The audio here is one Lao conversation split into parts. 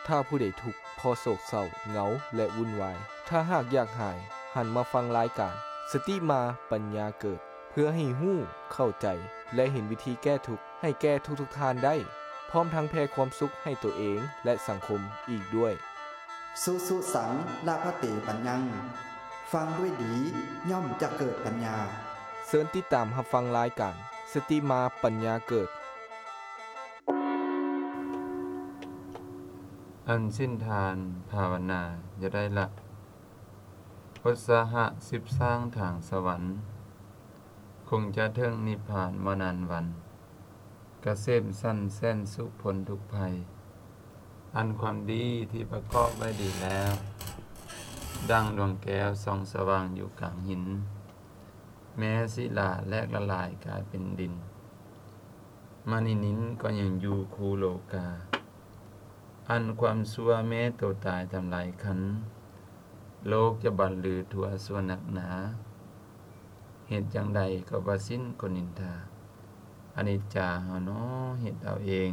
ຖ້າຜູ້ໃດທຸກ ເພາະໂສກເສົ້າ, ເຫງົາ ແລະ ວຸ່ນວາຍ, ຖ້າຫາກຢາກຫາຍ, ຫັນມາຟັງລາຍການ ສະຕິມາປັນຍາເກີດ ເພື່ອໃຫ້ຮູ້, ເຂົ້າໃຈ ແລະ ເຫັນວິທີແກ້ທຸກໃຫ້ແກ່ທຸກໆທ່ານໄດ້, ພ້ອມທັງແຜ່ຄວາມສຸກໃຫ້ຕົວເອງ ແລະ ສັງຄົມອີກດ້ວຍ. ສຸສຸສັງ ລະພະເຕ ປັນຍັງ ຟັງດ້ວຍດີ ຍ່ອມຈະເກີດປັນຍາ. ເຊີນຕິດຕາມຮັບຟັງລາຍການ ສະຕິມາປັນຍາເກີດ. ອັນສິ້ນທານພາວະນາຢ່າໄດ້ລະ, ອຸດສາຫະສືບສ້າງທາງສະຫວັນ, ຄົງຈະເຖິງນິບພານບໍ່ນານວັນ, ກະເສມສັນແສນສຸກພົ້ນທຸກໄພ. ອັນຄວາມດີທີ່ປະກອບໄວ້ດີແລ້ວ, ດັ່ງດວງແກ້ວສ່ອງສະຫວ່າງຢູ່ກາງຫີນ, ແມ້ສິລາແຫຼກລະລາຍກາຍເປັນດິນ, ມະນີນິນກໍຍັງຢູ່ຄູ່ໂລກາ. ອັນຄວາມຊົ່ວແມ້ໂຕຕາຍທຳລາຍຄັນ, ໂລກຈະບັນລືທົ່ວຊົ່ວໜັກໜາ. ເຮັດຈັ່ງໃດກໍບໍ່ສິ້ນຄົນນິນທາ, ອະນິດຈາເຮົານໍເຮັດເອົາເອງ.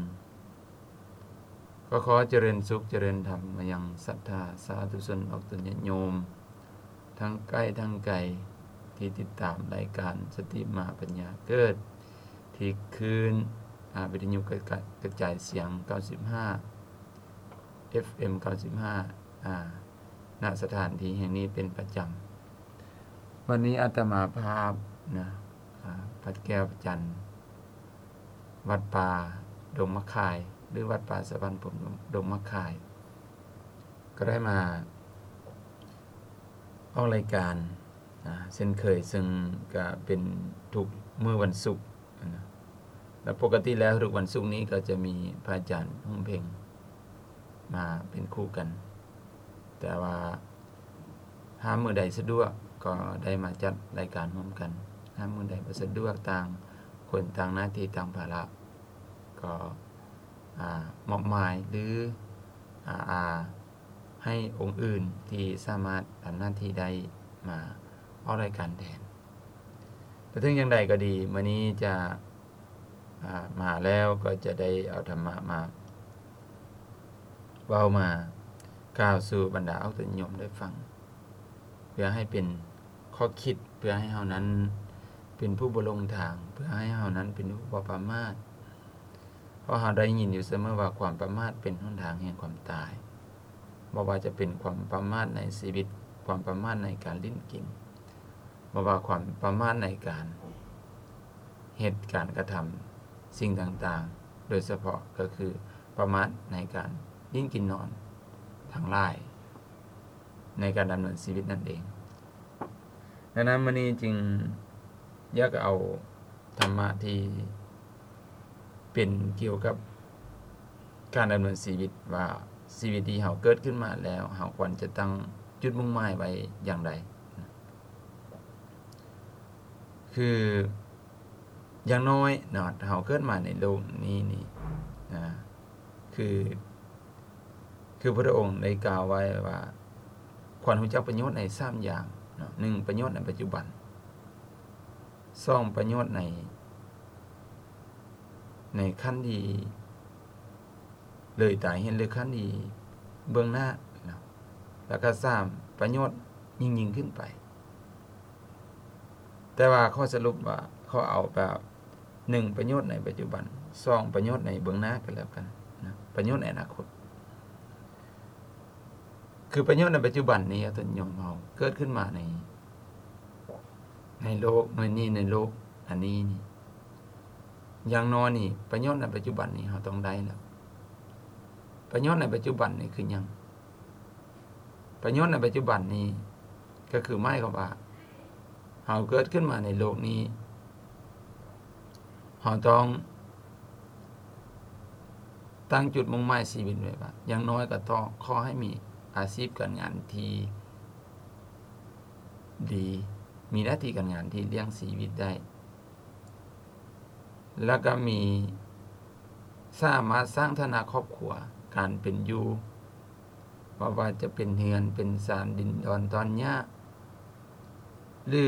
ກໍຂໍຈະເລີນສຸກຈະເລີນທຳມາຍັງສັດທາສາທຸຊົນອອກຕົນຍາດໂຍມ ທັງໃກ້ທັງໄກ ທີ່ຕິດຕາມລາຍການສະຕິມາປັນຍາເກີດ ທີ່ຄື້ນ ອາ ວິທະຍຸກະ ກະຈາຍສຽງເກົ້າສິບຫ້າ ເອັຟເອັມ ເກົ້າສິບຫ້າ ອາ ນະສະຖານທີ່ແຫ່ງນີ້ເປັນປະຈຳ. ວັນນີ້ອາດຕະມາພາບນະ ອາ ວັດແກ້ວພະຈັນ ວັດປ່າດົງໝາກຄາຍ ຫຼື ວັດປ່າສະຫວັນພົມດົງໝາກຄາຍ ກໍໄດ້ມາອອກລາຍການ ອາ ເຊັ່ນເຄີຍ, ເຊິ່ງກະເປັນທຸກມື້ວັນສຸກນະ ແລະ ປົກກະຕິແລ້ວທຸກວັນສຸກນີ້ກໍຈະມີພະອາຈານຮຸ່ງເພັງມາເປັນຄູ່ກັນ, ແຕ່ວ່າ ຫາກມື້ໃດສະດວກກໍໄດ້ມາຈັດລາຍການຮ່ວມກັນ, ຫາກມື້ໃດບໍ່ສະດວກ ຕ່າງຄົນຕ່າງໜ້າທີ່ຕ່າງພາລະ ກໍ ອາ ມອບໝາຍ ຫຼື ອາ ອາ ໃຫ້ອົງອື່ນທີ່ສາມາດທຳໜ້າທີ່ໄດ້ມາອອກລາຍການແທນ. ແຕ່ເຖິງຢ່າງໃດກໍດີ, ມື້ນີ້ຈະ ອາ ມາແລ້ວກໍຈະໄດ້ເອົາທຳມະມາເວົ້າມາກ່າວສູ່ບັນດາອອກຕົນນິຍົມໄດ້ຟັງ, ເພື່ອໃຫ້ເປັນຂໍ້ຄິດ, ເພື່ອໃຫ້ເຮົານັ້ນເປັນຜູ້ບໍ່ຫຼົງທາງ, ເພື່ອໃຫ້ເຮົານັ້ນເປັນຜູ້ບໍ່ປະໝາດ. ເພາະເຮົາໄດ້ຍິນຢູ່ສະເໝີວ່າ ຄວາມປະໝາດເປັນຫົນທາງແຫ່ງຄວາມຕາຍ. ບໍ່ວ່າຈະເປັນຄວາມປະໝາດໃນຊີວິດ, ຄວາມປະໝາດໃນການຫຼິ້ນກິນ, ບໍ່ວ່າຄວາມປະໝາດໃນການເຮັດການກະທຳສິ່ງຕ່າງໆ, ໂດຍສະເພາະກໍຄືປະໝາດໃນການຫຼິ້ນກິນນອນທັງຫຼາຍໃນການດຳເນີນຊີວິດນັ້ນເອງ. ດັ່ງນັ້ນ ມື້ນີ້ຈຶ່ງຢາກເອົາທຳມະທີ່ເປັນກ່ຽວກັບການດຳເນີນຊີວິດ ວ່າຊີວິດທີ່ເຮົາເກີດຂຶ້ນມາແລ້ວ ເຮົາຄວນຈະຕັ້ງຈຸດມຸ່ງໝາຍໄວ້ຢ່າງໃດ. ຄື ຢ່າງນ້ອຍເນາະ ເຮົາເກີດມາໃນໂລກນີ້ນີ້ ອາ ຄື ຄືພະພຸດທະອົງໄດ້ກ່າວໄວ້ວ່າ ຄວນຮູ້ຈັກປະໂຫຍດໃນສາມຢ່າງເນາະ, ໜຶ່ງ ປະໂຫຍດໃນປັດຈຸບັນ, ສອງ ປະໂຫຍດໃນ ໃນຂັ້ນທີ່ເລີຍຕາຍເຫັນ ຫຼື ຂັ້ນທີ່ເບື້ອງໜ້າເນາະ, ແລ້ວກໍ ສາມ ປະໂຫຍດຍິ່ງໆຂຶ້ນໄປ. ແຕ່ວ່າຂໍສະຫຼຸບວ່າ ຂໍເອົາແບບ ໜຶ່ງ ປະໂຫຍດໃນປັດຈຸບັນ, ສອງ ປະໂຫຍດໃນເບື້ອງໜ້າກໍແລ້ວກັນນະ, ປະໂຫຍດໃນອະນາຄົດ. ຄືປະໂຫຍດໃນປັດຈຸບັນນີ້ ອາ ຕົນໂຍມເຮົາເກີດຂຶ້ນມາໃນ ໃນໂລກໃນນີ້ ໃນໂລກອັນນີ້ນີ້ ຢ່າງນ້ອຍນີ້ ປະໂຫຍດໃນປັດຈຸບັນນີ້ເຮົາຕ້ອງໄດ້ແລ້ວ. ປະໂຫຍດໃນປັດຈຸບັນນີ້ຄືຫຍັງ? ປະໂຫຍດໃນປັດຈຸບັນນີ້ ກໍຄືໝາຍຄວາມວ່າ ເຮົາເກີດຂຶ້ນມາໃນໂລກນີ້ ເຮົາຕ້ອງຕັ້ງຈຸດມຸ່ງໝາຍຊີວິດໄວ້ວ່າ ຢ່າງນ້ອຍກໍຕ້ອງ ຂໍໃຫ້ມີອາຊີບການງານທີ່ດີ, ມີໜ້າທີ່ການງານທີ່ລ້ຽງຊີວິດໄດ້ ແລ້ວກໍມີ ສາມາດສ້າງຖານະຄອບຄົວ, ການເປັນຢູ່, ບໍ່ວ່າຈະເປັນເຮືອນເປັນຊານ, ດິນດອນຕອນຫຍ້າ ຫຼື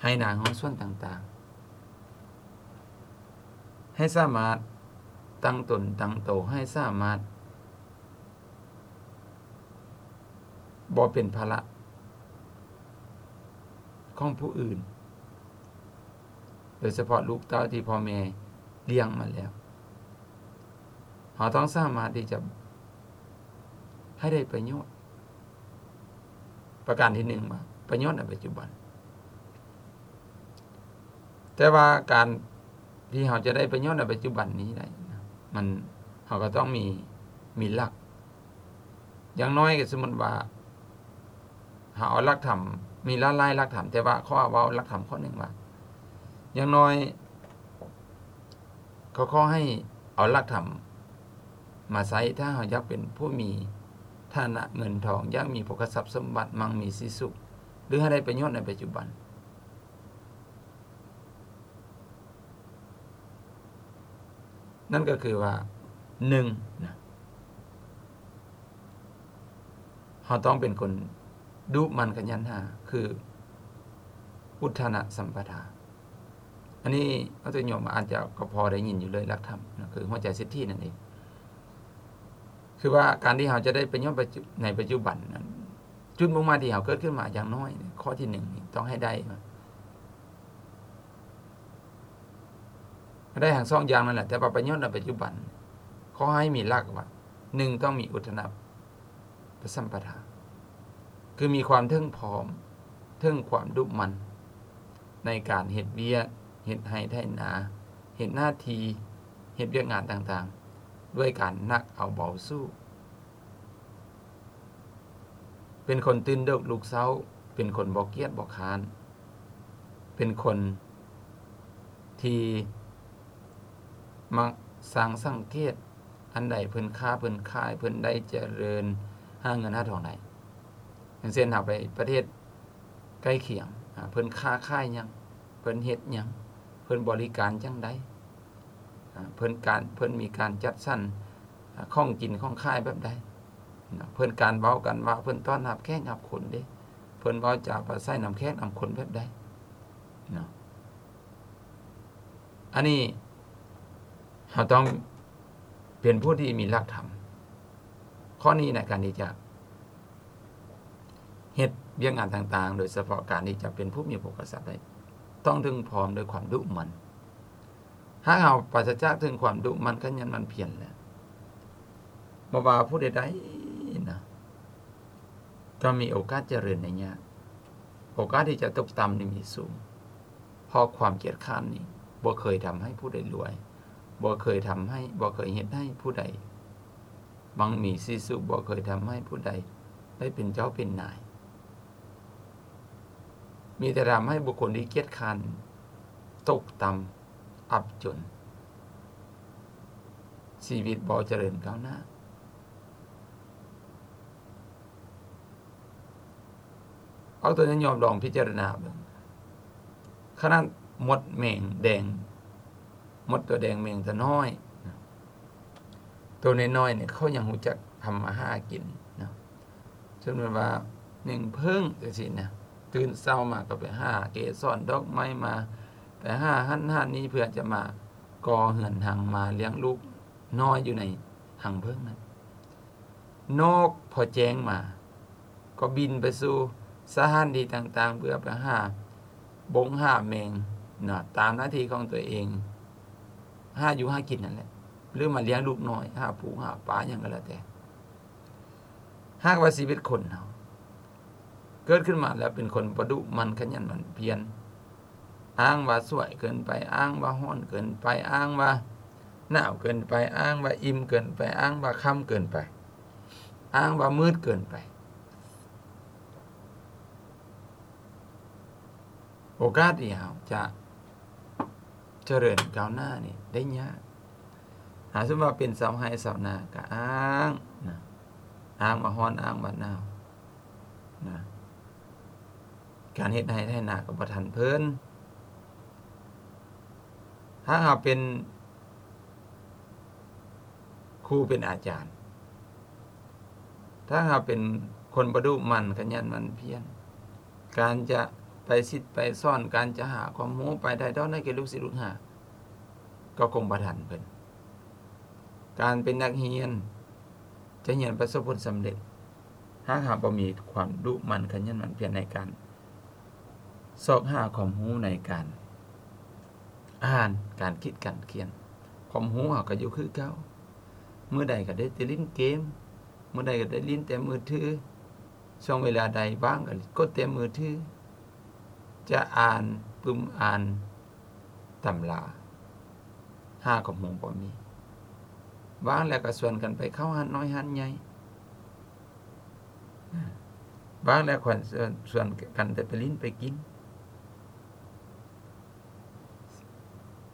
ໄຮ່ນາເຮືອນສວນຕ່າງໆ, ໃຫ້ສາມາດຕັ້ງຕົນຕັ້ງໂຕ, ໃຫ້ສາມາດ ບໍ່ເປັນພາລະຂອງຜູ້ອື່ນ, ໂດຍສະເພາະລູກເຕົ້າທີ່ພໍ່ແມ່ລ້ຽງມາແລ້ວ. ເຮົາຕ້ອງສາມາດທີ່ຈະໃຫ້ໄດ້ປະໂຫຍດ. ປະການທີໜຶ່ງວ່າ ປະໂຫຍດໃນປັດຈຸບັນ. ແຕ່ວ່າການທີ່ເຮົາຈະໄດ້ປະໂຫຍດໃນປັດຈຸບັນນີ້ໄດ້ນະ ມັນ ເຮົາກໍຕ້ອງມີ ມີຫຼັກ. ຢ່າງໜ້ອຍກໍສົມມຸດວ່າ ເຮົາເອົາຫຼັກທຳ ມີຫຼາຍໆຫຼັກທຳ, ແຕ່ວ່າຂໍເວົ້າຫຼັກທຳຂໍ້ໜຶ່ງວ່າ ຢ່າງໜ້ອຍ ກໍຂໍໃຫ້ເອົາຫຼັກທຳມາໃຊ້ ຖ້າເຮົາຢາກເປັນຜູ້ມີຖານະເງິນທອງ, ຢາກມີໂພຄະຊັບສົມບັດ, ມັ່ງມີສີສຸກ ຫຼື ໃຫ້ໄດ້ປະໂຫຍດໃນປັດຈຸບັນ. ນັ້ນກໍຄືວ່າ ໜຶ່ງນະ ເຮົາຕ້ອງເປັນຄົນດຸໝັ່ນຂະຫຍັນຫາ ຄືອຸດທະນະສຳປະທາ. ອັນນີ້ອາດຈະໂຍມອາດຈະກໍພໍໄດ້ຍິນຢູ່ເລີຍ ຫຼັກທຳນະ ຄືຫົວໃຈເສດຖີນັ້ນເອງ. ຄືວ່າການທີ່ເຮົາຈະໄດ້ປະໂຫຍດໃນປັດຈຸບັນນັ້ນ ຈຸດມຸ່ງໝາຍທີ່ເຮົາເກີດຂຶ້ນມາ ຢ່າງໜ້ອຍຂໍ້ທີໜຶ່ງນີ້ຕ້ອງໃຫ້ໄດ້ ໃຫ້ໄດ້ທັງສອງຢ່າງນັ້ນແຫຼະ, ແຕ່ວ່າປະໂຫຍດໃນປັດຈຸບັນ ຂໍໃຫ້ມີຫຼັກວ່າ ໜຶ່ງ ຕ້ອງມີອຸດທະນະ ປະສຳປະທາ ຄືມີຄວາມເຖິງພ້ອມ ເຖິງຄວາມດຸໝັ່ນໃນການເຮັດວຽກ, ເຮັດໄຮ່ໄຖນາ, ເຮັດໜ້າທີ່, ເຮັດວຽກງານຕ່າງໆ ດ້ວຍການໜັກເອົາເບົາສູ້, ເປັນຄົນຕື່ນເດິກລຸກເຊົ້າ, ເປັນຄົນບໍ່ກຽດບໍ່ຄ້ານ, ເປັນຄົນທີ່ມັກຊ່າງສັງເກດ ອັນໃດເພິ່ນຄ້າເພິ່ນຂາຍ ເພິ່ນໄດ້ຈະເລີນ ຫາເງິນຫາທອງໄດ້. ຢ່າງເຊັ່ນ ເຮົາໄປປະເທດໃກ້ຄຽງ ອາ ເພິ່ນຄ້າຂາຍຫຍັງ ເພິ່ນເຮັດຫຍັງ ເພິ່ນບໍລິການຈັ່ງໃດ ອາ ເພິ່ນການ ເພິ່ນມີການຈັດສັນ ອາ ຂອງກິນຂອງຂາຍແບບໃດເນາະ ເພິ່ນການເວົ້າການວ່າ ເພິ່ນຕ້ອນຮັບແຂກຮັບຄົນເດ້ ເພິ່ນເວົ້າຈາປາໄສນຳແຂກນຳຄົນແບບໃດເນາະ. ອັນນີ້ເຮົາຕ້ອງເປັນຜູ້ທີ່ມີຫຼັກທຳ ຂໍ້ນີ້ໃນການທີ່ຈະເຮັດວຽກງານຕ່າງໆ ໂດຍສະເພາະການທີ່ຈະເປັນຜູ້ມີໂພຄະຊັບໄດ້ ຕ້ອງເຖິງພ້ອມດ້ວຍຄວາມດຸໝັ່ນ. ຫາກເຮົາປາສະຈາກເຖິງຄວາມດຸໝັ່ນຂະຫຍັນໝັ່ນພຽນແລ້ວ ບໍ່ວ່າຜູ້ໃດໆນະ ກໍມີໂອກາດຈະເລີນໄດ້ຍາກ, ໂອກາດທີ່ຈະຕົກຕ່ຳນີ້ມີສູງ, ເພາະຄວາມກຽດຄ້ານນີ້ບໍ່ເຄີຍທຳໃຫ້ຜູ້ໃດລວຍ, ບໍ່ເຄີຍທຳໃຫ້, ບໍ່ເຄີຍເຮັດໃຫ້ຜູ້ໃດມັ່ງມີສີສຸກ, ບໍ່ເຄີຍທຳໃຫ້ຜູ້ໃດໄດ້ເປັນເຈົ້າເປັນນາຍ, ມີແຕ່ທຳໃຫ້ບຸກຄົນທີ່ກຽດຄ້ານຕົກຕ່ຳ ອັບຈົນ, ຊີວິດບໍ່ຈະເລີນກ້າວໜ້າ. ເອົາຕົວຢ່ອງ ລອງພິຈາລະນາເບິ່ງ, ຂະໜາດມົດແມງແດງ, ມົດຕົວແດງແມງຕົວນ້ອຍ, ຕົວນ້ອຍໆນີ້ ເຂົາຍັງຮູ້ຈັກທຳມາຫາກິນເນາະ. ສົມມຸດວ່າໜຶ່ງເຜິ້ງຈັ່ງຊີ້ນະ, ຕື່ນເຊົ້າມາກໍໄປຫາເກສອນດອກໄມ້ມາ, ໄປຫາຫັ້ນຫານີ້ ເພື່ອຈະມາກໍ່ເຮືອນຮັງ ມາລ້ຽງລູກນ້ອຍຢູ່ໃນຮັງເຜິ້ງນັ້ນ. ນົກພໍແຈ້ງມາ ກໍບິນໄປສູ່ສະຖານທີ່ຕ່າງໆ ເພື່ອໄປຫາບົງຫາແມງເນາະ ຕາມໜ້າທີ່ຂອງຕົວເອງ, ຫາຢູ່ຫາກິນນັ້ນແຫຼະ ຫຼືມາລ້ຽງລູກນ້ອຍ, ຫາປູຫາປາຫຍັງກໍແລ້ວແຕ່. ຫາກວ່າຊີວິດຄົນເຮົາເກີດຂຶ້ນມາແລ້ວເປັນຄົນບໍ່ດຸໝັ່ນຂະຫຍັນໝັ່ນພຽນ, ອ້າງວ່າສວຍເກີນໄປ, ອ້າງວ່າຮ້ອນເກີນໄປ, ອ້າງວ່າໜາວເກີນໄປ, ອ້າງວ່າອີ່ມເກີນໄປ, ອ້າງວ່າຄ່ຳເກີນໄປ, ອ້າງວ່າມືດເກີນໄປ, ໂອກາດທີ່ເຮົາຈະຈະເລີນກ້າວໜ້ານີ້ໄດ້ຍາກ. ຫາສົມມຸດວ່າເປັນຊາວໄຮ່ຊາວນາກໍອ້າງນະ, ອ້າງວ່າຮ້ອນ, ອ້າງວ່າໜາວນະ, ການເຮັດໄຮ່ໄຖນາກໍບໍ່ທັນເພິ່ນ. ຖ້າເຮົາເປັນຄູເປັນອາຈານ, ຖ້າເຮົາເປັນຄົນບໍ່ດຸໝັ່ນຂະຫຍັນໝັ່ນພຽນ, ການຈະໄປສິດໄປສອນ, ການຈະຫາຄວາມຮູ້, ໄປຖ່າຍທອດໃຫ້ແກ່ລູກສິດລູກຫາ ກໍຄົງບໍ່ທັນເພິ່ນ. ການເປັນນັກຮຽນ ຈະຮຽນປະສົບຜົນສຳເລັດ, ຖ້າຫາກບໍ່ມີຄວາມດຸໝັ່ນຂະຫຍັນໝັ່ນພຽນໃນການຊອກຫາຄວາມຮູ້ ໃນການອ່ານ, ການຄິດ, ການຂຽນ, ຄວາມຮູ້ເຮົາກໍຢູ່ຄືເກົ່າ. ມື້ໃດກໍໄດ້ແຕ່ຫຼິ້ນເກມ, ມື້ໃດກໍໄດ້ຫຼິ້ນແຕ່ມືຖື, ຊ່ວງເວລາໃດວ່າງກໍກົດແຕ່ມືຖື, ຈະອ່ານ, ປຶ້ມອ່ານຕຳລາ, ຫາຄວາມຮູ້ບໍ່ມີ. ວ່າງແລ້ວກໍຊວນກັນໄປເຂົ້າຮ້ານນ້ອຍຮ້ານໃຫຍ່, ວ່າງແລ້ວກໍຊວນ, ຊວນກັນແຕ່ໄປຫຼິ້ນໄປກິນ.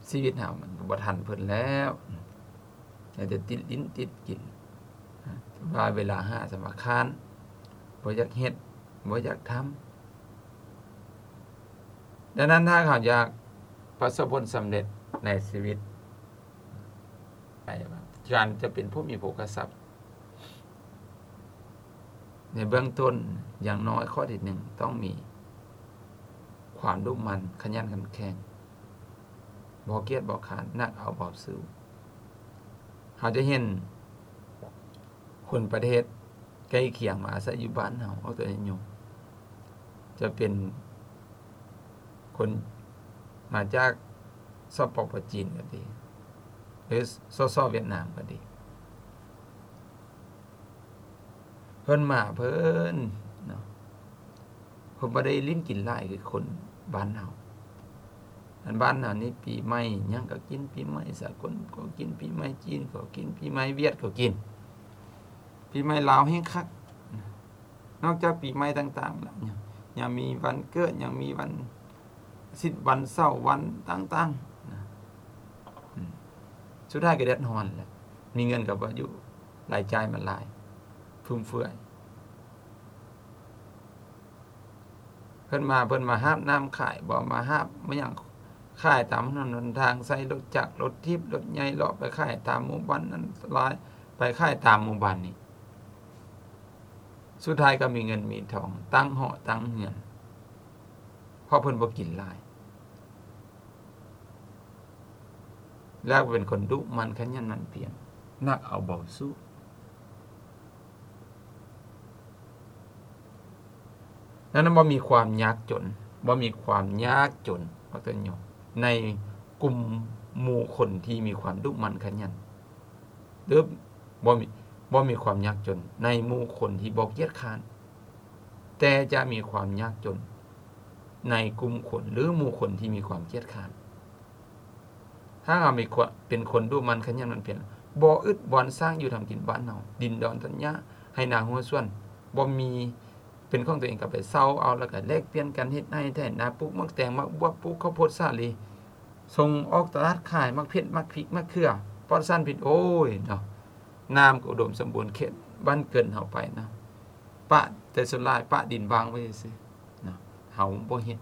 ຊີວິດເຮົາມັນກໍບໍ່ທັນເພິ່ນແລ້ວ, ແຕ່ຕິດຫຼິ້ນຕິດກິນ, ວ່າເວລາຫາສຳຄັນ, ບໍ່ຢາກເຮັດ, ບໍ່ຢາກທຳ. ດັ່ງນັ້ນ ຖ້າເຮົາຢາກປະສົບຜົນສຳເລັດໃນຊີວິດ, ການຈະເປັນຜູ້ມີໂພຄະຊັບ ໃນເບື້ອງຕົ້ນ, ຢ່າງນ້ອຍຂໍ້ທີໜຶ່ງ ຕ້ອງມີຄວາມດຸໝັ່ນ, ຂະຫຍັນ, ເຂັ້ມແຂງ, ບໍ່ກຽດບໍ່ຄ້ານ, ໜັກເອົາເບົາສູ້. ເຮົາຈະເຫັນຄົນປະເທດໃກ້ຄຽງມາອາໄສຢູ່ບ້ານເຮົາ, ຍົກຕົວຢ່າງ, ຈະເປັນຄົນມາຈາກ ສປປ ຈີນກໍດີ ຫຼື ສສ ຫວຽດນາມກໍດີ, ເພິ່ນມາເພິ່ນເນາະ, ເພິ່ນບໍ່ໄດ້ຫຼິ້ນກິນຫຼາຍຄືຄົນບ້ານເຮົາ. ອັນບ້ານເຮົານີ້ ປີໃໝ່ຫຍັງກໍກິນ, ປີໃໝ່ສາກົນກໍກິນ, ປີໃໝ່ຈີນກໍກິນ, ປີໃໝ່ຫວຽດກໍກິນ, ປີໃໝ່ລາວແຮ່ງຄັກ. ນອກຈາກປີໃໝ່ຕ່າງໆແລ້ວ ຍັງມີວັນເກີດ, ຍັງມີວັນອາທິດ, ວັນເສົາ, ວັນຕ່າງໆນະ. ອືມ ສຸດທ້າຍກໍເດືອດຮ້ອນແຫຼະ, ມີເງິນກໍບໍ່ຢູ່, ລາຍຈ່າຍມັນຫຼາຍ, ຟຸມເຟືອຍ. ເພິ່ນມາ, ເພິ່ນມາຫາບນ້ຳຂາຍບໍ, ມາຫາບມາຫຍັງຂາຍຕາມຖະໜົນຫົນທາງ, ໃຊ້ລົດຈັກ, ລົດຖີບ, ລົດໃຫຍ່ ເລາະໄປຂາຍຕາມໝູ່ບ້ານນັ້ນ, ລາຍໄປຂາຍຕາມໝູ່ບ້ານນີ້. ສຸດທ້າຍກໍມີເງິນມີທອງ, ຕັ້ງຫໍຕັ້ງເຮືອນ, ເພາະເພິ່ນບໍ່ກິນຫຼາຍ. ແລ້ວເປັນຄົນດຸໝັ່ນຂະຫຍັນໝັ່ນພຽນ, ໜັກເອົາເບົາສູ້. ນັ້ນບໍ່ມີຄວາມຍາກຈົນ, ບໍ່ມີຄວາມຍາກຈົນ, ໃນກຸ່ມໝູ່ຄົນທີ່ມີຄວາມດຸໝັ່ນຂະຫຍັນ, ຫຼື ບໍ່ມີ, ບໍ່ມີຄວາມຍາກຈົນໃນໝູ່ຄົນທີ່ບໍ່ກຽດຄ້ານ, ແຕ່ຈະມີຄວາມຍາກຈົນໃນກຸ່ມຄົນ ຫຼື ໝູ່ຄົນທີ່ມີຄວາມກຽດຄ້ານ. ຖ້າເຮົາມີຄວາມເປັນຄົນດຸໝັ່ນຂະຫຍັນໝັ່ນພຽນ, ບໍ່ອຶດບ່ອນສ້າງຢູ່ທຳກິນບ້ານເຮົາ, ດິນດອນຕົ້ນຫຍ້າ, ໄຮ່ນາຮົ້ວສວນ, ບໍ່ມີເປັນຂອງຕົວເອງ, ກໍໄປເຊົ່າເອົາ, ແລ້ວກໍແລກປ່ຽນກັນເຮັດໄຮ່ໄຖນາ, ປູກໝາກແຕງ, ໝາກບວບ, ປູກເຂົ້າໂພດສາລີ, ສົ່ງອອກຕະຫຼາດຂາຍໝາກເຜັດ, ໝາກພິກ, ໝາກເຂືອ, ປອດສານພິດ. ໂອ້ຍເນາະ, ນ້ຳກໍອຸດົມສົມບູນເຂດບ້ານເກີນເຮົາໄປເນາະ, ປະ, ແຕ່ສ່ວນຫຼາຍປະດິນວ່າງໄວ້ຊື່ໆເນາະ, ເຮົາບໍ່ເຮັດ.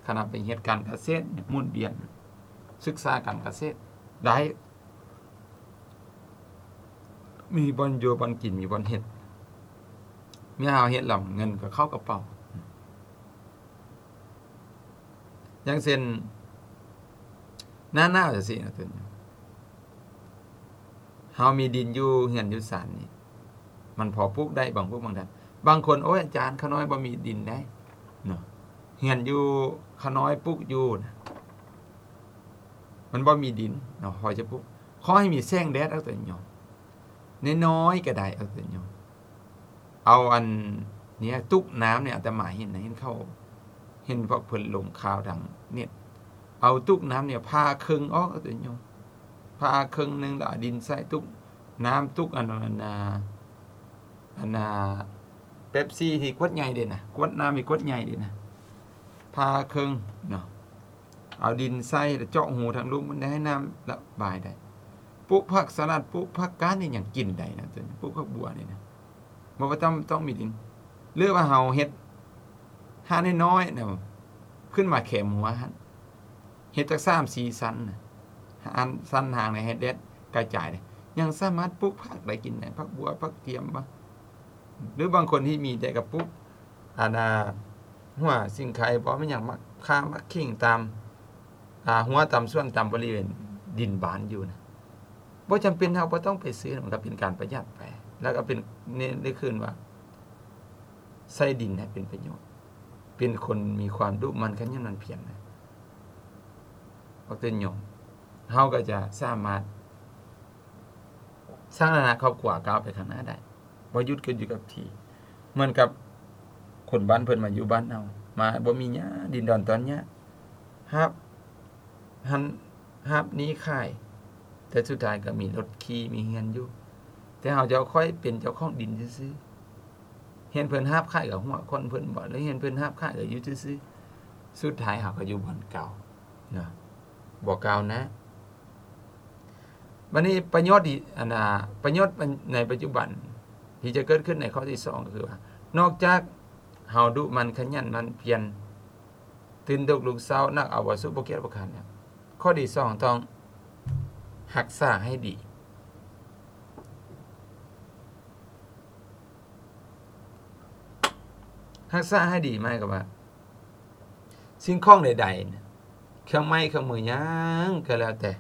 ຂະໜາດໄປເຮັດການກະເສດ, ໝູນວຽນ, ສຶກສາການກະເສດໄດ້, ມີບ່ອນຢູ່ບ່ອນກິນ, ມີບ່ອນເຮັດ. ເມື່ອເຮົາເຮັດແລ້ວ ເງິນກໍເຂົ້າກະເປົາ. ຢ່າງເຊັ່ນ ໜ້າໜາວຈັ່ງຊີ້ນະ, ເຮົາມີດິນຢູ່ເຮືອນຢູ່ຊານນີ້, ມັນພໍປູກໄດ້ບາງພວກບາງທ່ານ. ບາງຄົນ, ໂອ້ຍ ອາຈານ, ຂ້ານ້ອຍບໍ່ມີດິນໄດ໋ເນາະ, ເຮືອນຢູ່ຂ້ານ້ອຍປູກຢູ່ນະ, ມັນບໍ່ມີດິນເນາະ, ພໍຈະປູກ. ຂໍໃຫ້ມີແສງແດດ, ເອົາຕົວຍອດ, ນ້ອຍໆກໍໄດ້, ເອົາຕົວຍອດ. ເອົາອັນເນີ້ຍ ຕຸກນ້ຳນີ້, ອາດຕະມາເຫັນນະ, ເຫັນເຂົາ, ເຫັນພວກເພິ່ນລົງຂ່າວທາງເນັດ, ເອົາຕຸກນ້ຳນີ້ຜ່າເຄິ່ງອອກ, ເອົາຕົວຍອດ, ຜ່າເຄິ່ງໜຶ່ງ ແລ້ວເອົາດິນໃສ່ຕຸກນ້ຳ, ຕຸກອັນ, ອັນ, ອັນ, ອັນ, ເປັບຊີທີ່ຂວດໃຫຍ່ເດ້ນະ, ຂວດນ້ຳທີ່ຂວດໃຫຍ່ເດ້ນະ, ຜ່າເຄິ່ງເນາະ. ເອົາດິນໃສ່ ແລ້ວເຈາະຮູທາງລຸ່ມມັນໄດ້ ໃຫ້ນ້ຳລະບາຍໄດ້. ປູກຜັກສະຫຼັດ, ປູກຜັກກາດນີ້ຍັງກິນໄດ້ນະ, ປູກຜັກບົວນີ້ນະ, ບໍ່ວ່າຕ້ອງ, ຕ້ອງມີດິນ. ຫຼືວ່າເຮົາເຮັດຮ້ານນ້ອຍໆນະ, ຂຶ້ນມາແຄມຫົວຫັ້ນ, ເຮັດຈັກສາມສີ່ຊັ້ນນະ, ອັນຊັ້ນທາງໃນໃຫ້ແດດກະຈາຍໄດ້, ຍັງສາມາດປູກຜັກໄດ້ກິນໄດ້, ຜັກບົວ, ຜັກທຽມບໍ, ຫຼືບາງຄົນທີ່ມີແຕ່ກະປູກ ອັນນ່າ ຫົວສີໄຄບໍ ແມ່ນຫຍັງ ໝາກຂ່າ ໝາກຂີງ ຕາມ ອ່າ ຮົ້ວ ຕາມສວນ ຕາມບໍລິເວນດິນບ້ານຢູ່ນະ. ບໍ່ຈຳເປັນ ເຮົາບໍ່ຕ້ອງໄປຊື້, ມັນກໍເປັນການປະຢັດໄປ ແລ້ວກໍເປັນ ນີ້ ນີ້ຄືນວ່າ ໃຊ້ດິນໃຫ້ເປັນປະໂຫຍດ, ເປັນຄົນມີຄວາມດຸໝັ່ນຂະຫຍັນໝັ່ນພຽນນະ ອອກຕົນຍອມ, ເຮົາກໍຈະສາມາດສ້າງຖານະຄອບຄົວກ້າວໄປຂ້າງໜ້າໄດ້, ບໍ່ຢຸດກໍຢູ່ກັບທີ່. ເໝືອນກັບຄົນບ້ານເພິ່ນມາຢູ່ບ້ານເຮົາ, ມາບໍ່ມີຫຍັງ, ດິນດອນຕອນຫຍ້າ, ຮັບຫັ້ນ ຮັບນີ້ຂາຍ, ແຕ່ສຸດທ້າຍກໍມີລົດຂີ່ ມີເຮືອນຢູ່, ແຕ່ເຮົາເຈົ້າຂ້ອຍເປັນເຈົ້າຂອງດິນຊື່ໆ. ເຫັນເພິ່ນຫາບຂາຍກໍຫົວຂອນເພິ່ນບໍ ຫຼືເຫັນເພິ່ນຫາບຂາຍກໍຢູ່ຊື່ໆ. ສຸດທ້າຍເຮົາກໍຢູ່ບ່ອນເກົ່າເນາະ, ບໍ່ກ້າວໜ້າ. ບັດນີ້ປະໂຫຍດທີ່ ອັນນ່າ ປະໂຫຍດໃນປັດຈຸບັນທີ່ຈະເກີດຂຶ້ນໃນຂໍ້ທີສອງ ກໍຄືວ່າ ນອກຈາກເຮົາດຸໝັ່ນຂະຫຍັນໝັ່ນພຽນ, ຕື່ນດົກລຸກເຊົ້າ, ໜັກເອົາບໍ່ສູ້, ບໍ່ກຽດບໍ່ຄ້ານແລ້ວ, ຂໍ້ທີສອງ ຕ້ອງຮັກສາໃຫ້ດີ. ຮັກສາໃຫ້ດີໝາຍຄວາມວ່າ ສິ່ງຂອງໃດໆ ເຄື່ອງໄມ້ເຄື່ອງມືຫຍັງກໍແລ້ວແຕ່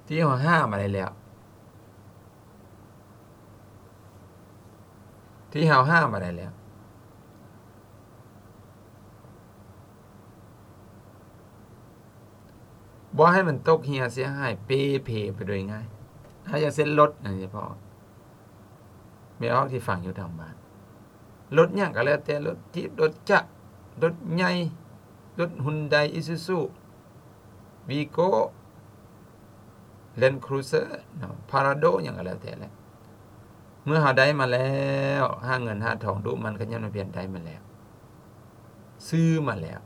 ທີ່ເຮົາຫາມາໄດ້ແລ້ວ ທີ່ເຮົາຫາມາໄດ້ແລ້ວ ບໍ່ໃຫ້ມັນຕົກເຫ່ຍເສຍຫາຍເປ່ເພໄປໂດຍງ່າຍ. ຖ້າຢ່າງເຊັ່ນລົດນີ້ເພາະ ແມ່ອອກທີ່ຟັງຢູ່ທາງບ້ານ, ລົດຫຍັງກໍແລ້ວແຕ່, ລົດຈີບ, ລົດຈັກ, ລົດໃຫຍ່, ລົດຮຸນໄດ, ອີຊູຊູ, ວີໂກ້, ແລນຄຣູເຊີເນາະ, ພາຣາໂດ ຫຍັງກໍແລ້ວແຕ່ແຫຼະ. ເມື່ອເຮົາໄດ້ມາແລ້ວ, ຫາເງິນຫາທອງ, ດຸໝັ່ນຂະຫຍັນໝັ່ນພຽນໄດ້ມາແລ້ວ, ຊື້ມາແລ້ວ,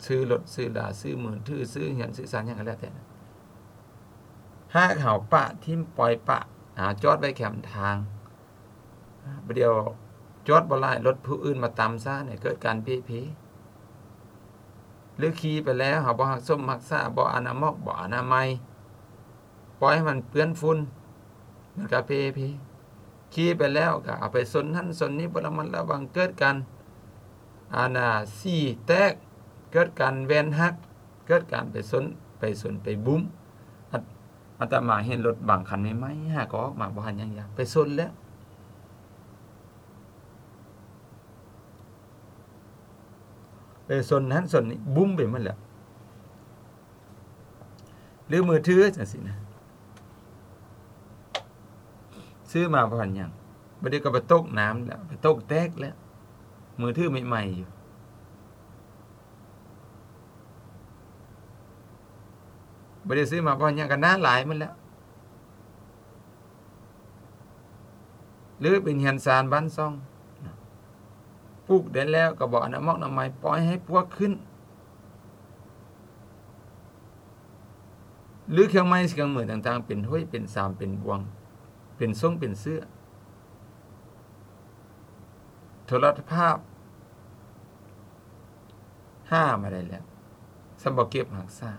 ຊື້ລົດ, ຊື້ລາ, ຊື້ມືຖື, ຊື້ເຮືອນ, ຊື້ຊານ, ຫຍັງກໍແລ້ວແຕ່, ຫາກເຮົາປະຖິ້ມ, ປ່ອຍປະ, ຫາຈອດໄວ້ແຄມທາງ, ປະດຽວຈອດບໍ່ຫຼາຍ, ລົດຜູ້ອື່ນມາຕຳຊະ ໃຫ້ເກີດການເປ່ເພ. ຫຼືຂີ່ໄປແລ້ວ ເຮົາບໍ່ຮັກສົມຮັກສາ, ບໍ່ອານາໝອກ, ບໍ່ອະນາໄມ, ປ່ອຍໃຫ້ມັນເປື້ອນຝຸ່ນ, ມັນກໍເປ່ເພ. ຂີ່ໄປແລ້ວກໍເອົາໄປຊົນຫັ້ນຊົນນີ້, ບໍ່ລະມັດລະວັງ, ເກີດການ ອັນນ່າ ສີແຕກ, ເກີດການແວ່ນຫັກ, ເກີດການໄປຊົນ, ໄປຊົນ, ໄປບຸ້ມ. ອາດ, ອາດຕະມາເຫັນລົດບາງຄັນໃໝ່ໆ ຫາກໍອອກມາບໍ່ທັນຫຍັງຢາ ໄປຊົນແລ້ວ, ໄປຊົນຫັ້ນຊົນນີ້, ບຸ້ມໄປໝົດແລ້ວ. ຫຼືມືຖືຈັ່ງຊີ້ນະ, ຊື້ມາບໍ່ທັນຫຍັງ, ບັດນີ້ກໍໄປຕົກນ້ຳແລ້ວ, ໄປຕົກແຕກແລ້ວ, ມືຖືໃໝ່ໆຢູ່. ບໍ່ໄດ້ຊື້ມາເພາະຫຍັງ, ກໍໜ້າລາຍມັນແຫຼະ. ຫຼືເປັນເຮືອນຊານບ້ານຊ່ອງ, ປູກໄດ້ແລ້ວກໍບໍ່ອະນາໝອກອະນາໄມ, ປ່ອຍໃຫ້ປວກຂຶ້ນ. ຫຼືເຄື່ອງໄມ້ເຄື່ອງມືຕ່າງໆ ເປັນຫ້ວຍເປັນຊາມ ເປັນບ່ວງ ເປັນສົງເປັນເສື້ອ. ໂທລະພາບ ຫາມາໄດ້ແລ້ວ, ຊ້ຳບໍ່ເກັບຮັກສາ,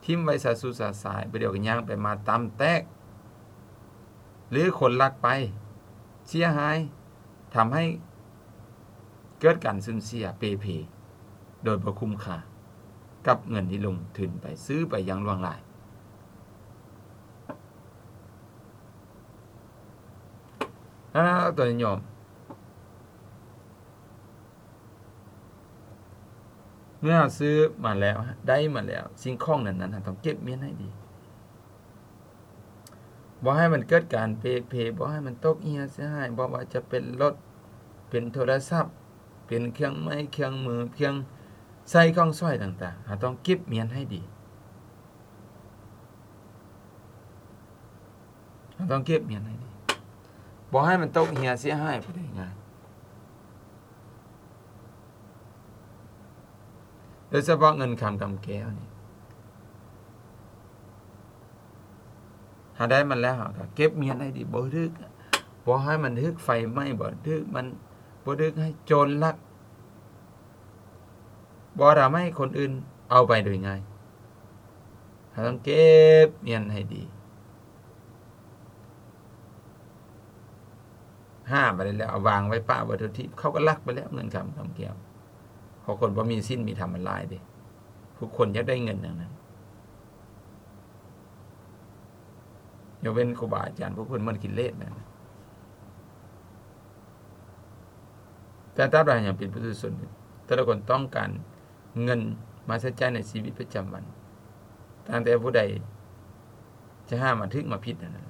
ຖິ້ມໄວ້ຊະຊູຊະຊາຍ, ປະດຽວກໍຍ່າງໄປມາຕຳແຕກ, ຫຼືຄົນລັກໄປ, ເສຍຫາຍ, ທຳໃຫ້ເກີດການສູນເສຍເປ່ເພ ໂດຍບໍ່ຄຸ້ມຄ່າກັບເງິນທີ່ລົງທຶນໄປ, ຊື້ໄປຢ່າງຫຼວງຫຼາຍ. ອາ ຕົວຍອມ ເມື່ອເຮົາຊື້ມາແລ້ວ, ໄດ້ມາແລ້ວ, ສິ່ງຂອງນັ້ນໆ ເຮົາຕ້ອງເກັບມ້ຽນໃຫ້ດີ. ບໍ່ໃຫ້ມັນເກີດການເປ່ເພ, ບໍ່ໃຫ້ມັນຕົກເຫ່ຍເສຍຫາຍ, ບໍ່ວ່າຈະເປັນລົດ, ເປັນໂທລະສັບ, ເປັນເຄື່ອງໄມ້ເຄື່ອງມື, ເຄື່ອງໃຊ້ຂອງສອຍຕ່າງໆ, ເຮົາຕ້ອງເກັບມ້ຽນໃຫ້ດີ. ເຮົາຕ້ອງເກັບມ້ຽນໃຫ້ດີ, ບໍ່ໃຫ້ມັນຕົກເຫ່ຍເສຍຫາຍໄປໄດ້ງ່າຍ. ໂດຍສະເພາະເງິນຄຳກຳແກ້ວນີ້, ເຮົາໄດ້ມັນແລ້ວ ເຮົາກໍເກັບມ້ຽນໃຫ້ດີ, ບໍ່ຖືກ, ບໍ່ໃຫ້ມັນຖືກໄຟໄໝ້, ບໍ່ຖືກມັນ, ບໍ່ຖືກໃຫ້ໂຈນລັກ, ບໍ່ທຳໃຫ້ຄົນອື່ນເອົາໄປໂດຍງ່າຍ. ເຮົາຕ້ອງເກັບມ້ຽນໃຫ້ດີ. ຫາມາໄດ້ແລ້ວ ເອົາວາງໄວ້ປະໄວ້ທົ່ວທີບ, ເຂົາກໍລັກໄປແລ້ວ ເງິນຄຳກຳແກ້ວ. ເພາະຄົນບໍ່ມີສິນມີທຳມັນຫຼາຍເດ້, ທຸກຄົນຢາກໄດ້ເງິນທັງນັ້ນ, ຍົກເວັ້ນຄູບາອາຈານ ພວກເພິ່ນໝົດກິເລດແລ້ວນະ. ແຕ່ຕາບໃດເຮົາຍັງເປັນປຸຖຸຊົນຢູ່, ແຕ່ລະຄົນຕ້ອງການເງິນມາໃຊ້ຈ່າຍໃນຊີວິດປະຈຳວັນ, ຕັ້ງແຕ່ຜູ້ໃດຈະຫາມາຖືກມາຜິດນັ້ນນະ.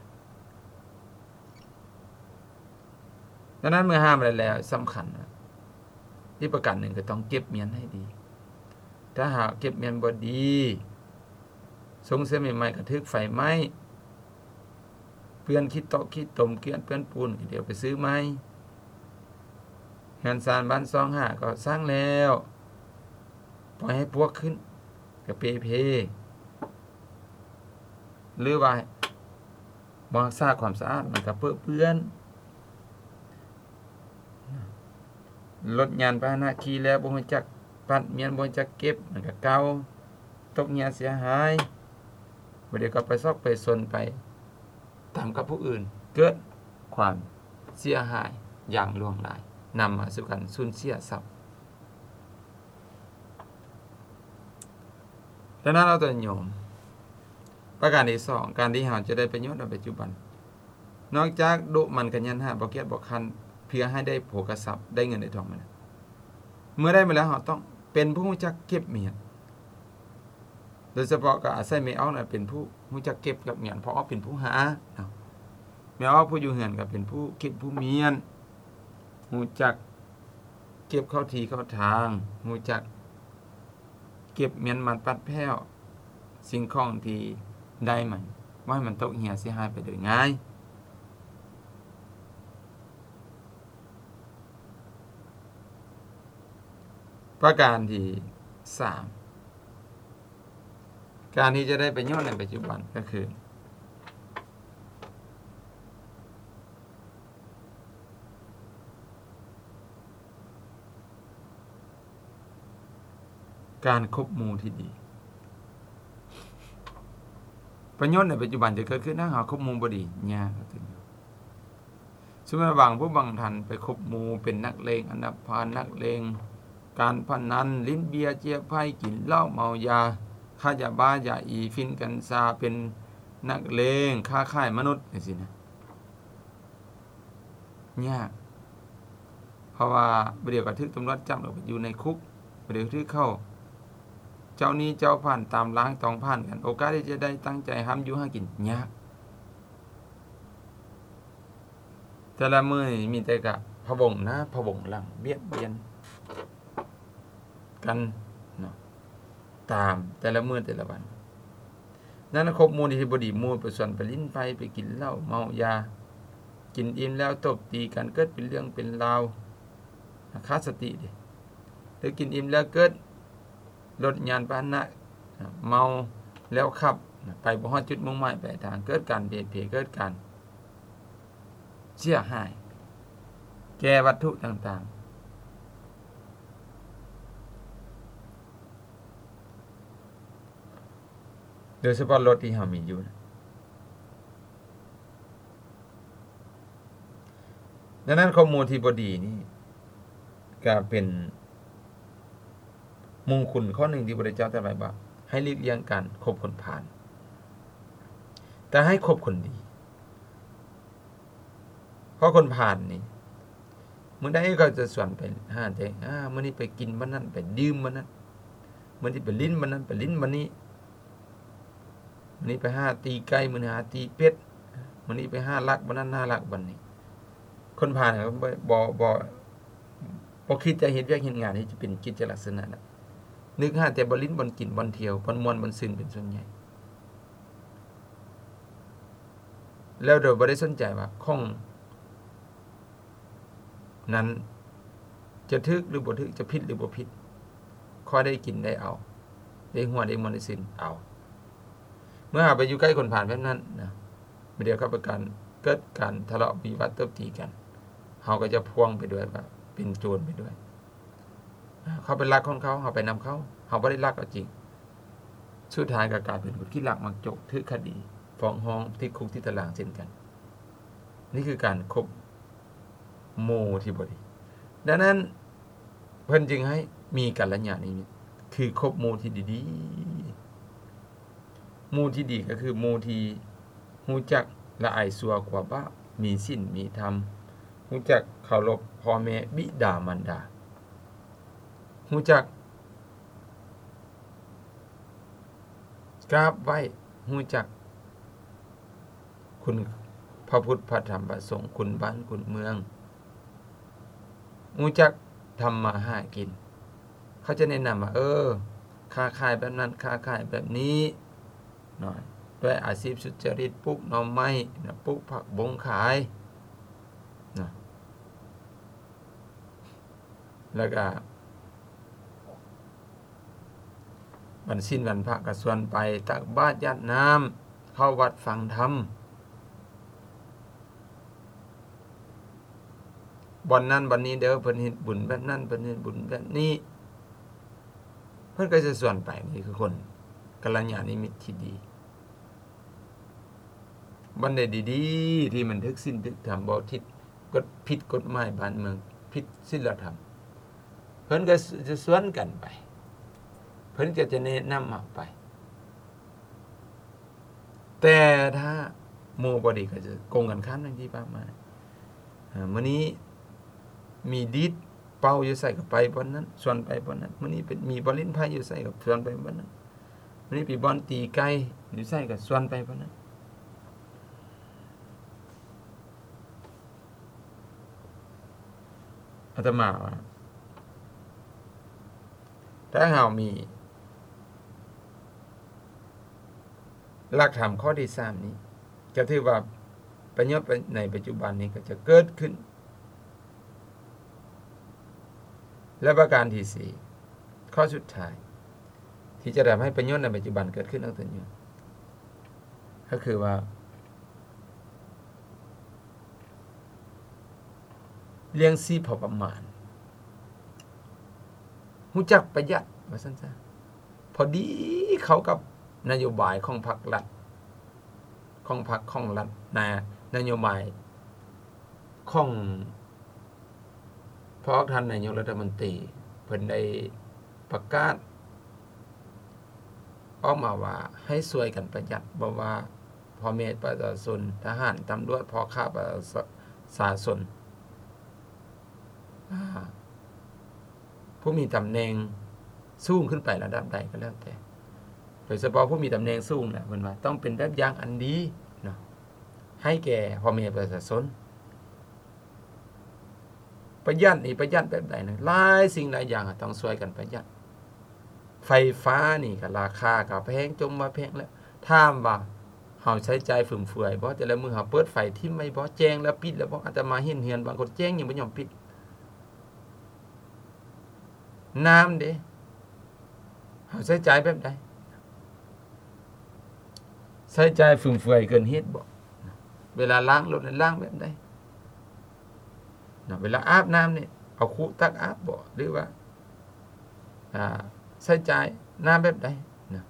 ດັ່ງນັ້ນເມື່ອຫາມາໄດ້ແລ້ວ ສຳຄັນນະ ອີກປະການໜຶ່ງກໍຕ້ອງເກັບມ້ຽນໃຫ້ດີ. ຖ້າຫາກເກັບມ້ຽນບໍ່ດີ, ຊົງເສື້ອໃໝ່ໆກໍຖືກໄຟໄໝ້, ເປື້ອນຂີ້ຕົກຂີ້ຕົມ ເປື້ອນເປື້ອນປູນ ກໍດຽວໄປຊື້ໃໝ່. ເຮືອນຊານບ້ານຊ່ອງຫາກໍສ້າງແລ້ວ, ປ່ອຍໃຫ້ປວກຂຶ້ນ ກໍເປ່ເພ ຫຼືວ່າ ບໍ່ຮັກສາຄວາມສະອາດ ມັນກໍເປິເປື້ອນ. ລົດຍານພາຫະນະຂີ່ແລ້ວບໍ່ຮູ້ຈັກປັດມ້ຽນ ບໍ່ຮູ້ຈັກເກັບ ມັນກໍເກົ່າ, ຕົກເຫຍເສຍຫາຍ, ບໍ່ດຽວກໍໄປຊອກໄປຊົນໄປຕຳກັບຜູ້ອື່ນ, ເກີດຄວາມເສຍຫາຍຢ່າງຫຼວງຫຼາຍ, ນຳມາສູ່ການສູນເສຍຊັບ. ດັ່ງນັ້ນເອົາຕົວໂຍມ, ປະການທີສອງ ການທີ່ເຮົາຈະໄດ້ປະໂຫຍດໃນປັດຈຸບັນ, ນອກຈາກດຸໝັ່ນຂະຫຍັນຫາ ບໍ່ກຽດບໍ່ຄ້ານ ເພື່ອໃຫ້ໄດ້ໂພຄະຊັບ ໄດ້ເງິນໄດ້ທອງມາແລ້ວ, ເມື່ອໄດ້ມາແລ້ວ ເຮົາຕ້ອງເປັນຜູ້ຮູ້ຈັກເກັບມ້ຽນ. ໂດຍສະເພາະກໍອາໄສແມ່ອອກນະເປັນຜູ້ຮູ້ຈັກເກັບກັບມ້ຽນ, ເພາະວ່າເປັນຜູ້ຫາເນາະ. ແມ່ອອກຜູ້ຢູ່ເຮືອນກໍເປັນຜູ້ເກັບຜູ້ມ້ຽນ, ຮູ້ຈັກເກັບເຂົ້າທີ່ເຂົ້າທາງ, ຮູ້ຈັກເກັບມ້ຽນມັດປັດແພ້ວສິ່ງຂອງທີ່ໄດ້ມາ, ບໍ່ໃຫ້ມັນຕົກເຫຍເສຍຫາຍໄປໂດຍງ່າຍ. ປະການທີສາມ ການທີ່ຈະໄດ້ປະໂຫຍດໃນປັດຈຸບັນກໍຄື ການຄົບໝູ່ທີ່ດີ. ປະໂຫຍດໃນປັດຈຸບັນຈະເກີດຂຶ້ນ ຖ້າເຮົາຄົບໝູ່ບໍ່ດີ ຍາກເຖິງຢູ່. ສົມມຸດວ່າບາງຜູ້ບາງທ່ານໄປຄົບໝູ່ເປັນນັກເລງອັນດັບພານ, ນັກເລງການພະນັນ, ຫຼິ້ນເບຍເຈຍໄພ, ກິນເຫຼົ້າເມົາຢາ, ຄ້າຢາບ້າຢາອີ, ຝິ່ນກັນຊາ, ເປັນນັກເລງ, ຄ້າຂາຍມະນຸດ ຈັ່ງຊີ້ນະ. ຍາກ ເພາະວ່າບາດດຽວກໍຖືກຕຳຫຼວດຈັບ ແລ້ວໄປຢູ່ໃນຄຸກ, ບາດດຽວຖືກເຂົາເຈົ້າໜີ້ເຈົ້າພັນຕາມລ້າງຕອງຜ່ານກັນ, ໂອກາດທີ່ຈະໄດ້ຕັ້ງໃຈຮ່ຳຢູ່ຫາກິນຍາກ. ແຕ່ລະມື້ນີ້ມີແຕ່ກະພະວົງໜ້າພະວົງຫຼັງ ບຽດບຽນກັນເນາະ ຕາມແຕ່ລະມື້ແຕ່ລະວັນ. ນັ້ນຄົບໝູ່ທີ່ບໍ່ດີ, ໝູ່ໄປຊວນໄປຫຼິ້ນໄພ, ໄປກິນເຫຼົ້າເມົາຢາ, ກິນອີ່ມແລ້ວຕົບຕີກັນ ເກີດເປັນເລື່ອງເປັນລາວ, ຂາດສະຕິເດ້. ຫຼືກິນອີ່ມແລ້ວເກີດລົດຍານພາຫະນະ, ເມົາແລ້ວຂັບ, ໄປບໍ່ຮອດຈຸດມຸ່ງໝາຍປາຍທາງ, ເກີດການເພເພ, ເກີດການເສຍຫາຍແກ່ວັດຖຸຕ່າງໆ. ໂດຍສະເພາະລົດທີ່ເຮົາມີຢູ່ນະ. ດັ່ງນັ້ນ ຄົບໝູ່ທີ່ບໍ່ດີນີ້ກະເປັນມຸງຄຸນຂໍ້ໜຶ່ງທີ່ພະພຸດທະເຈົ້າຕະໄວ້ວ່າ ໃຫ້ຫຼີກລ່ຽງການຄົບຄົນພານ, ແຕ່ໃຫ້ຄົບຄົນດີ. ເພາະຄົນພານນີ້ ມື້ໃດເຂົາຈະຊວນໄປຫາແຕ່ ອາ ມື້ນີ້ໄປກິນບ່ອນນັ້ນ ໄປດື່ມບ່ອນນັ້ນ, ມື້ນີ້ໄປຫຼິ້ນບ່ອນນັ້ນ ໄປຫຼິ້ນບ່ອນນີ້, ມື້ນີ້ໄປຫາຕີໄກ່, ມື້ໜ້າຫາຕີເປັດ, ມື້ນີ້ໄປຫາລັກບ່ອນນັ້ນ ຫາລັກບ່ອນນີ້. ຄົນພານກໍບໍ່ ບໍ່ ບໍ່ ບໍ່ຄິດຈະເຮັດວຽກເຮັດງານທີ່ຈະເປັນກິດຈະລັກສະນະນະ, ນຶກຫາແຕ່ບ່ອນຫຼິ້ນ ບ່ອນກິນ ບ່ອນທ່ຽວ ບ່ອນມ່ວນ ບ່ອນຊື່ນເປັນສ່ວນໃຫຍ່. ແລ້ວໂດຍບໍ່ໄດ້ສົນໃຈວ່າຂອງນັ້ນຈະຖືກຫຼືບໍ່ຖືກ, ຈະຜິດຫຼືບໍ່ຜິດ, ຂໍໄດ້ກິນໄດ້ເອົາ, ໄດ້ຫົວໄດ້ມ່ວນໄດ້ຊື່ນເອົາ. ເມື່ອເຮົາໄປຢູ່ໃກ້ຄົນພານແບບນັ້ນນະ, ບາດດຽວເຂົາໄປການ ເກີດການທະເລາະວິວາດຕົບຕີກັນ, ເຮົາກໍຈະພ່ວງໄປດ້ວຍວ່າເປັນໂຈນໄປດ້ວຍ. ເຂົາໄປລັກຂອງເຂົາ, ເຮົາໄປນຳເຂົາ, ເຮົາບໍ່ໄດ້ລັກເອົາຈິງ. ສຸດທ້າຍກໍກາຍເປັນຄົນຂີ້ລັກມັກຈົກ, ຖືກຄະດີ, ຟ້ອງຮ້ອງ, ຕິດຄຸກຕິດຕາລາງເຊັ່ນກັນ. ນີ້ຄືການຄົບໝູ່ທີ່ບໍ່ດີ. ດັ່ງນັ້ນ ເພິ່ນຈຶ່ງໃຫ້ມີກັນລະຍານມິດ, ຄືຄົບໝູ່ທີ່ດີໆ. ໝູ່ທີ່ດີກໍຄືໝູ່ທີ່ຮູ້ຈັກລະອາຍຊົ່ວກົວບາບ, ມີສິນມີທຳ, ໂຫ ຮູ້ຈັກເຄົາລົບພໍ່ແມ່ບິດາມານດາ, ຮູ້ຈັກກາບໄຫວ້, ຮູ້ຈັກຄຸນພະພຸດພະທຳພະສົງ, ຄຸນບ້ານຄຸນເມືອງ, ຮູ້ຈັກທຳມາຫາກິນ. ເຂົາຈະແນະນຳວ່າ ເອີ ຄ້າຂາຍແບບນັ້ນ, ຄ້າຂາຍແບບນີ້ເນາະ, ດ້ວຍອາຊີບສຸດຈະລິດ, ປູກໜໍ່ໄມ້ນະ, ປູກຜັກບົ້ງຂາຍນະ, ແລ້ວກະວັນສິນວັນພະກະຊວນໄປຕັກບາດຢາດນ້ຳ, ເຂົ້າວັດຟັງທຳ. ບ່ອນນັ້ນບ່ອນນີ້ເດີ, ເພິ່ນເຮັດບຸນແບບນັ້ນ, ເພິ່ນເຮັດບຸນແບບນີ້, ເພິ່ນກໍຈະຊວນໄປ. ນີ້ຄືຄົນກັນລະຍານມິດທີ່ດີ. ບ່ອນໃດດີໆ ທີ່ມັນຖືກສິນຖືກທຳ, ບໍ່ຜິດກົດ, ຜິດກົດໝາຍບ້ານເມືອງ, ຜິດສິນລະທຳ, ເພິ່ນກໍຈະຊວນກັນໄປ, ເພິ່ນກໍຈະແນະນຳເຮົາໄປ. ແຕ່ຖ້າໝູ່ບໍ່ດີກໍຈະກົງກັນຂ້າມ ດັ່ງທີ່ວ່າມາ. ອາ ມື້ນີ້ມີດີດເປົ່າຢູ່ໃສກໍໄປບ່ອນນັ້ນ, ຊວນໄປບ່ອນນັ້ນ. ມື້ນີ້ເປັນ ມີບ່ອນຫຼິ້ນໄພ້ຢູ່ໃສກໍຊວນໄປບ່ອນນັ້ນ. ມື້ນີ້ໄປບ່ອນຕີໄກ່ຢູ່ໃສກໍຊວນໄປບ່ອນນັ້ນ. ອາດຕະມາວ່າ ຖ້າເຮົາມີຫຼັກທຳຂໍ້ທີສາມນີ້ ກໍຖືວ່າປະໂຫຍດໃນປັດຈຸບັນນີ້ກໍຈະເກີດຂຶ້ນ. ແລະ ປະການທີສີ່ ຂໍ້ສຸດທ້າຍ ທີ່ຈະທຳໃຫ້ປະໂຫຍດໃນປັດຈຸບັນເກີດຂຶ້ນ ອອກຕົນຢູ່ ກໍຄືວ່າ ລ້ຽງຊີບພໍປະມານ, ຮູ້ຈັກປະຢັດ ວ່າຊັ້ນຊະ. ພໍດີເຂົ້າກັບນະໂຍບາຍຂອງພັກລັດ, ຂອງພັກຂອງລັດນະ, ນະໂຍບາຍຂອງພວກທ່ານນາຍົກລັດຖະມົນຕີ ເພິ່ນໄດ້ປະກາດ ອອກມາວ່າໃຫ້ຊ່ວຍກັນປະຢັດ, ບໍ່ວ່າພໍ່ແມ່ປະຊາຊົນ, ທະຫານ, ຕຳຫຼວດ, ພໍ່ຄ້າປະຊາຊົນ, ອາ ຜູ້ມີຕຳແໜ່ງສູງຂຶ້ນໄປລະດັບໃດກໍແລ້ວແຕ່, ໂດຍສະເພາະຜູ້ມີຕຳແໜ່ງສູງນະ, ເພິ່ນວ່າຕ້ອງເປັນແບບຢ່າງອັນດີເນາະ ໃຫ້ແກ່ພໍ່ແມ່ປະຊາຊົນ. ປະຢັດນີ້ປະຢັດແບບໃດນະ? ຫຼາຍສິ່ງຫຼາຍຢ່າງຕ້ອງຊ່ວຍກັນປະຢັດ. ໄຟຟ້ານີ້ກໍລາຄາກໍແພງ ຈົ່ມວ່າແພງແລ້ວ. ຖາມວ່າເຮົາໃຊ້ຈ່າຍຟຸມເຟືອຍບໍ່? ແຕ່ລະມື້ເຮົາເປີດໄຟຖິ້ມໄວ້ບໍ່? ແຈ້ງແລ້ວປິດແລ້ວບໍ່? ອາດຕະມາເຫັນເຮືອນບາງຄົນແຈ້ງຍັງບໍ່ຍອມປິດ. ນ້ຳເດ ເຮົາໃຊ້ຈ່າຍແບບໃດ? ໃຊ້ຈ່າຍຟຸມເຟືອຍເກີນເຫດບໍ່? ເວລາລ້າງລົດນັ້ນລ້າງແບບໃດ? ນະ ເວລາອາບນ້ຳນີ້ ເອົາຄຸຕັກອາບບໍ່ ຫຼືວ່າ ອ່າ ໃຊ້ຈ່າຍນ້ຳແບບໃດນະ?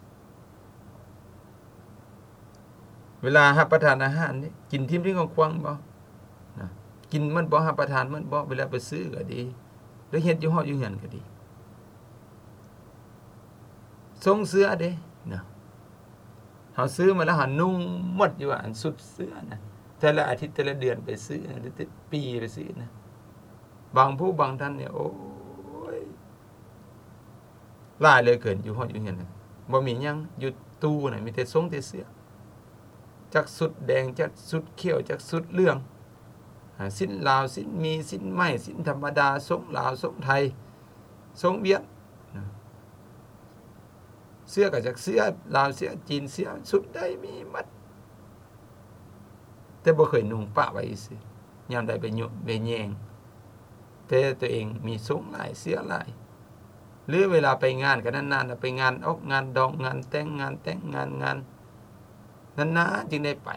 ເວລາຮັບປະທານອາຫານນີ້ ກິນຖິ້ມຖິ້ມຂວ້າງໆບໍ່ນະ? ກິນໝົດບໍ່? ຮັບປະທານໝົດບໍ່? ເວລາໄປຊື້ກໍດີ ຫຼືເຮັດຢູ່ຫໍຢູ່ເຮືອນກໍດີ. ຊົງເສື້ອເດນະ ເຮົາຊື້ມາແລ້ວເຮົານຸ່ງໝົດຢູ່ວ່າ ອັນຊຸດເສື້ອນະ ແຕ່ລະອາທິດ ແຕ່ລະເດືອນໄປຊື້ນະ ແຕ່ລະປີໄປຊື້ນະ. ບາງຜູ້ບາງທ່ານນີ້ ໂອ້ຍ ຫຼາຍເຫຼືອເກີນ ຢູ່ຫໍຢູ່ເຮືອນນະ ບໍ່ມີຫຍັງ ຢູ່ຕູ້ນະ ມີແຕ່ຊົງແຕ່ເສື້ອ ຈັກຊຸດແດງ ຈັກຊຸດຂຽວ ຈັກຊຸດເຫຼືອງ ອາ ສິ້ນລາວ ສິ້ນໝີ່ ສິ້ນໄໝ ສິ້ນທຳມະດາ ຊົງລາວ ຊົງໄທ ຊົງຫວຽດນະ. ເສື້ອກໍຈັກເສື້ອລາວ ເສື້ອຈີນ ເສື້ອຊຸດໃດມີໝົດ ແຕ່ບໍ່ເຄີຍນຸ່ງປະໄວ້ຊື່ໆ ຍາມໃດໄປໂຍະໄປແຍງ ແຕ່ຕົວເອງມີຊົງຫຼາຍ ເສື້ອຫຼາຍ ຫຼືເວລາໄປງານກໍນານໆ ໄປງານອອກງານດອງ ງານແຕ່ງ ງານແຕ່ງງານ ງານ ນານໆຈຶ່ງໄດ້ໄປ.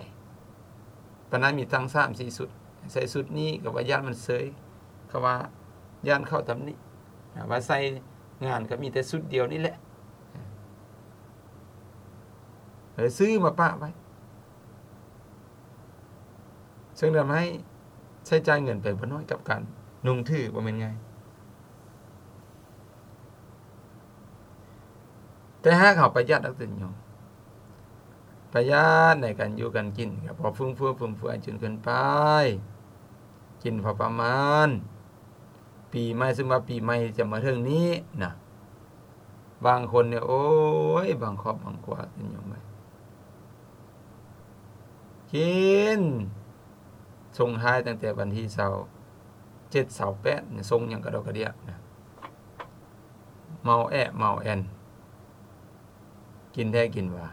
ປານນັ້ນມີຕັ້ງສາມສີ່ຊຸດ ໃສ່ຊຸດນີ້ກໍວ່າຢ້ານມັນເຊີຍ ເຂົາວ່າຢ້ານເຂົາຕຳໜິ ອາ ວ່າໃສ່ງານກໍມີແຕ່ຊຸດດຽວນີ້ແຫຼະ ເອີ ຊື້ມາປະໄວ້ ເຊິ່ງທຳໃຫ້ໃຊ້ຈ່າຍເງິນໄປບໍ່ໜ້ອຍກັບການນຸ່ງຖື ບໍ່ແມ່ນງ່າຍ. ແຕ່ຫາກເຮົາປະຢັດອັກຕະຍອມ ປະຢັດໃນການຢູ່ການກິນ ກໍບໍ່ຟຸມເຟືອ ຟຸມເຟືອຈົນເກີນໄປ. ກິນພໍປະມານ. ປີໃໝ່ ສົມມຸດວ່າປີໃໝ່ຈະມາເຖິງນີ້ນະ ບາງຄົນນີ້ ໂອ້ຍ ບາງຄອບບາງຄົວ ເປັນຫຍັງໄປ ກິນ ສົ່ງທ້າຍຕັ້ງແຕ່ວັນທີຊາວເຈັດ ຊາວແປດ ສົ່ງຫຍັງກະດອກກະເດຍນະ ເມົາແອະເມົາແອນ ກິນແທ້ກິນວ່າ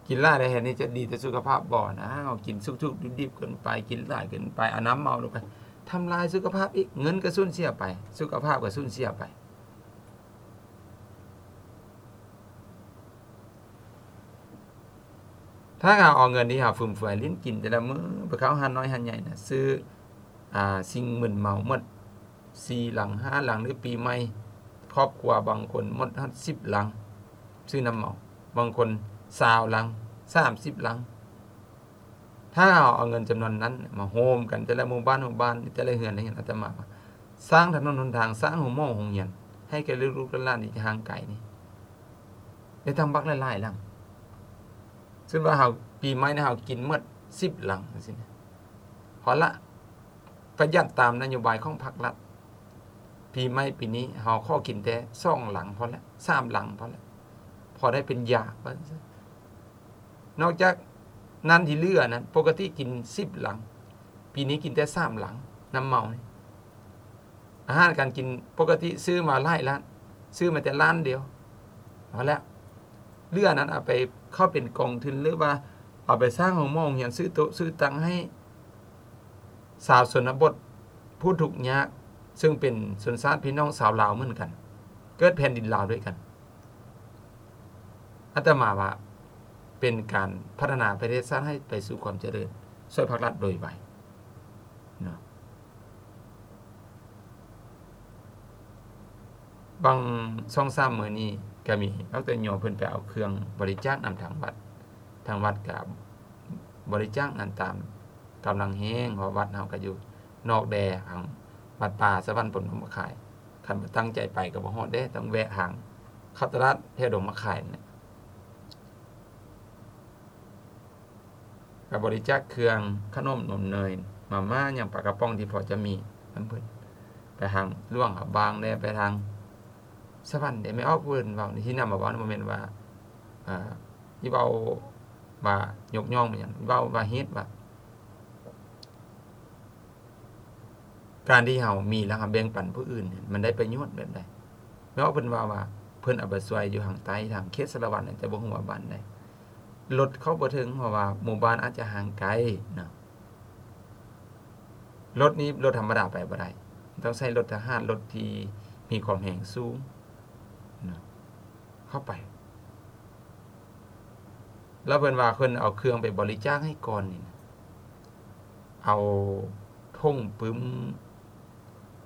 ກິນຫຼາຍແລ້ວເຮັດນີ້ຈະດີຕໍ່ສຸຂະພາບບໍ່ນະ? ເຮົາກິນສຸກໆດິບໆເກີນໄປ ກິນຫຼາຍເກີນໄປ ເອົານ້ຳເມົາລົງໄປ ທຳລາຍສຸຂະພາບອີກ ເງິນກະສູນເສຍໄປ ສຸຂະພາບກະສູນເສຍໄປ. ຖ້າເຮົາເອົາເງິນທີ່ເຮົາຟຸມເຟືອຍຫຼິ້ນກິນແຕ່ລະມື້ ໄປເຂົ້າຮ້ານນ້ອຍຮ້ານໃຫຍ່ນະ ຊື້ ອາ ສິ່ງມຶນເມົາໝົດ ສີ່ຫຼັງ ຫ້າຫຼັງ ຫຼື ປີໃໝ່ ຄອບຄົວບາງຄົນໝົດຮອດສິບຫຼັງ ຊື້ນ້ຳເມົາ ບາງຄົນຊາວຫຼັງ ສາມສິບຫຼັງ. ຖ້າເຮົາເອົາເງິນຈຳນວນນັ້ນມາໂຮມກັນ ແຕ່ລະໝູ່ບ້ານ ໝູ່ບ້ານ ແຕ່ລະເຮືອນ ເຮືອນ ອາດຕະມາວ່າ ສ້າງຖະໜົນຫົນທາງ ສ້າງໂຮງໝໍໂຮງຮຽນ ໃຫ້ແກ່ລູກໆຫຼານໆທີ່ຫ່າງໄກນີ້ ໄດ້ຕັ້ງບັກຫຼາຍໆຫຼັງ. ສົມມຸດວ່າເຮົາ ປີໃໝ່ນີ້ເຮົາກິນໝົດສິບຫຼັງຈັ່ງຊີ້ນະ ພໍລະ ປະຢັດຕາມນະໂຍບາຍຂອງພັກລັດ. ປີໃໝ່ປີນີ້ເຮົາຂໍກິນແຕ່ສອງຫຼັງພໍລະ ສາມຫຼັງພໍລະ ພໍໄດ້ເປັນຢາວ່າຊັ້ນຊະ. ນອກຈາກນັ້ນທີ່ເຫຼືອນັ້ນ ປົກກະຕິກິນສິບຫຼັງ ປີນີ້ກິນແຕ່ສາມຫຼັງ ນ້ຳເມົານີ້. ອາຫານການກິນປົກກະຕິຊື້ມາຫຼາຍລ້ານ ຊື້ມາແຕ່ລ້ານດຽວ ພໍແລ້ວ ເຫຼືອນັ້ນເອົາໄປເຂົ້າເປັນກອງທຶນ ຫຼືວ່າເອົາໄປສ້າງໂຮງໝໍໂຮງຮຽນ ຊື້ໂຕະຊື້ຕັ່ງໃຫ້ຊາວຊົນນະບົດ ຜູ້ທຸກຍາກ ເຊິ່ງເປັນຊົນຊາດພີ່ນ້ອງຊາວລາວເໝືອນກັນ ເກີດແຜ່ນດິນລາວດ້ວຍກັນ. ອາດຕະມາວ່າເປັນການພັດທະນາປະເທດຊາດໃຫ້ໄປສູ່ຄວາມຈະເລີນ ຊ່ວຍພັກລັດໂດຍໄວເນາະ. ບາງສອງສາມມື້ນີ້ກະມີ ດອກເຕີ ໂຍມເພິ່ນໄປເອົາເຄື່ອງບໍລິຈາກນຳທາງວັດ ທາງວັດກະບໍລິຈາກນັ້ນຕາມກຳລັງແຮງ ເພາະວັດເຮົາກະຢູ່ນອກແດນ ທາງວັດປ່າສະຫວັນພົມດົງມະຂາຍ ຄັນບໍ່ຕັ້ງໃຈໄປກະບໍ່ຮອດເດ້ ຕ້ອງແວະທາງເຂົ້າຕະຫຼາດແຖວດົງມະຂາຍນັ້ນແຫຼະ. ກະບໍລິຈາກເຄື່ອງ ຂະໜົມ ນົມເນີຍ ມາມ່າ ຫຍັງ ປາກະປ໋ອງທີ່ພໍຈະມີນຳເພິ່ນ ໄປທາງຫຼວງພະບາງແດ່ ໄປທາງສະຫວັນແດ່. ແມ່ອອກເພິ່ນເວົ້າໃນທີ່ນຳມາເວົ້າ ບໍ່ແມ່ນວ່າ ອາ ຊິເວົ້າວ່າຍົກຍ້ອງຫຍັງ ເວົ້າວ່າເຮັດວ່າ ການທີ່ເຮົາມີແລ້ວເຮົາແບ່ງປັນຜູ້ອື່ນ ມັນໄດ້ປະໂຫຍດແບບໃດ? ແມ່ອອກເພິ່ນເວົ້າວ່າ ເພິ່ນເອົາໄປຊ່ວຍຢູ່ທາງໃຕ້ ທາງເຂດສາລະວັນ ແຕ່ບໍ່ຮູ້ວ່າບ້ານໃດ ລົດເຂົ້າບໍ່ເຖິງ ເພາະວ່າໝູ່ບ້ານອາດຈະຫ່າງໄກເນາະ. ລົດນີ້ລົດທຳມະດາໄປບໍ່ໄດ້ ຕ້ອງໃຊ້ລົດທະຫານ ລົດທີ່ມີຄວາມແຮງສູງເນາະ ເຂົ້າໄປ. ແລ້ວເພິ່ນວ່າເພິ່ນເອົາເຄື່ອງໄປບໍລິຈາກໃຫ້ກ່ອນນີ້ນະ ເອົາຖົງປຶ້ມ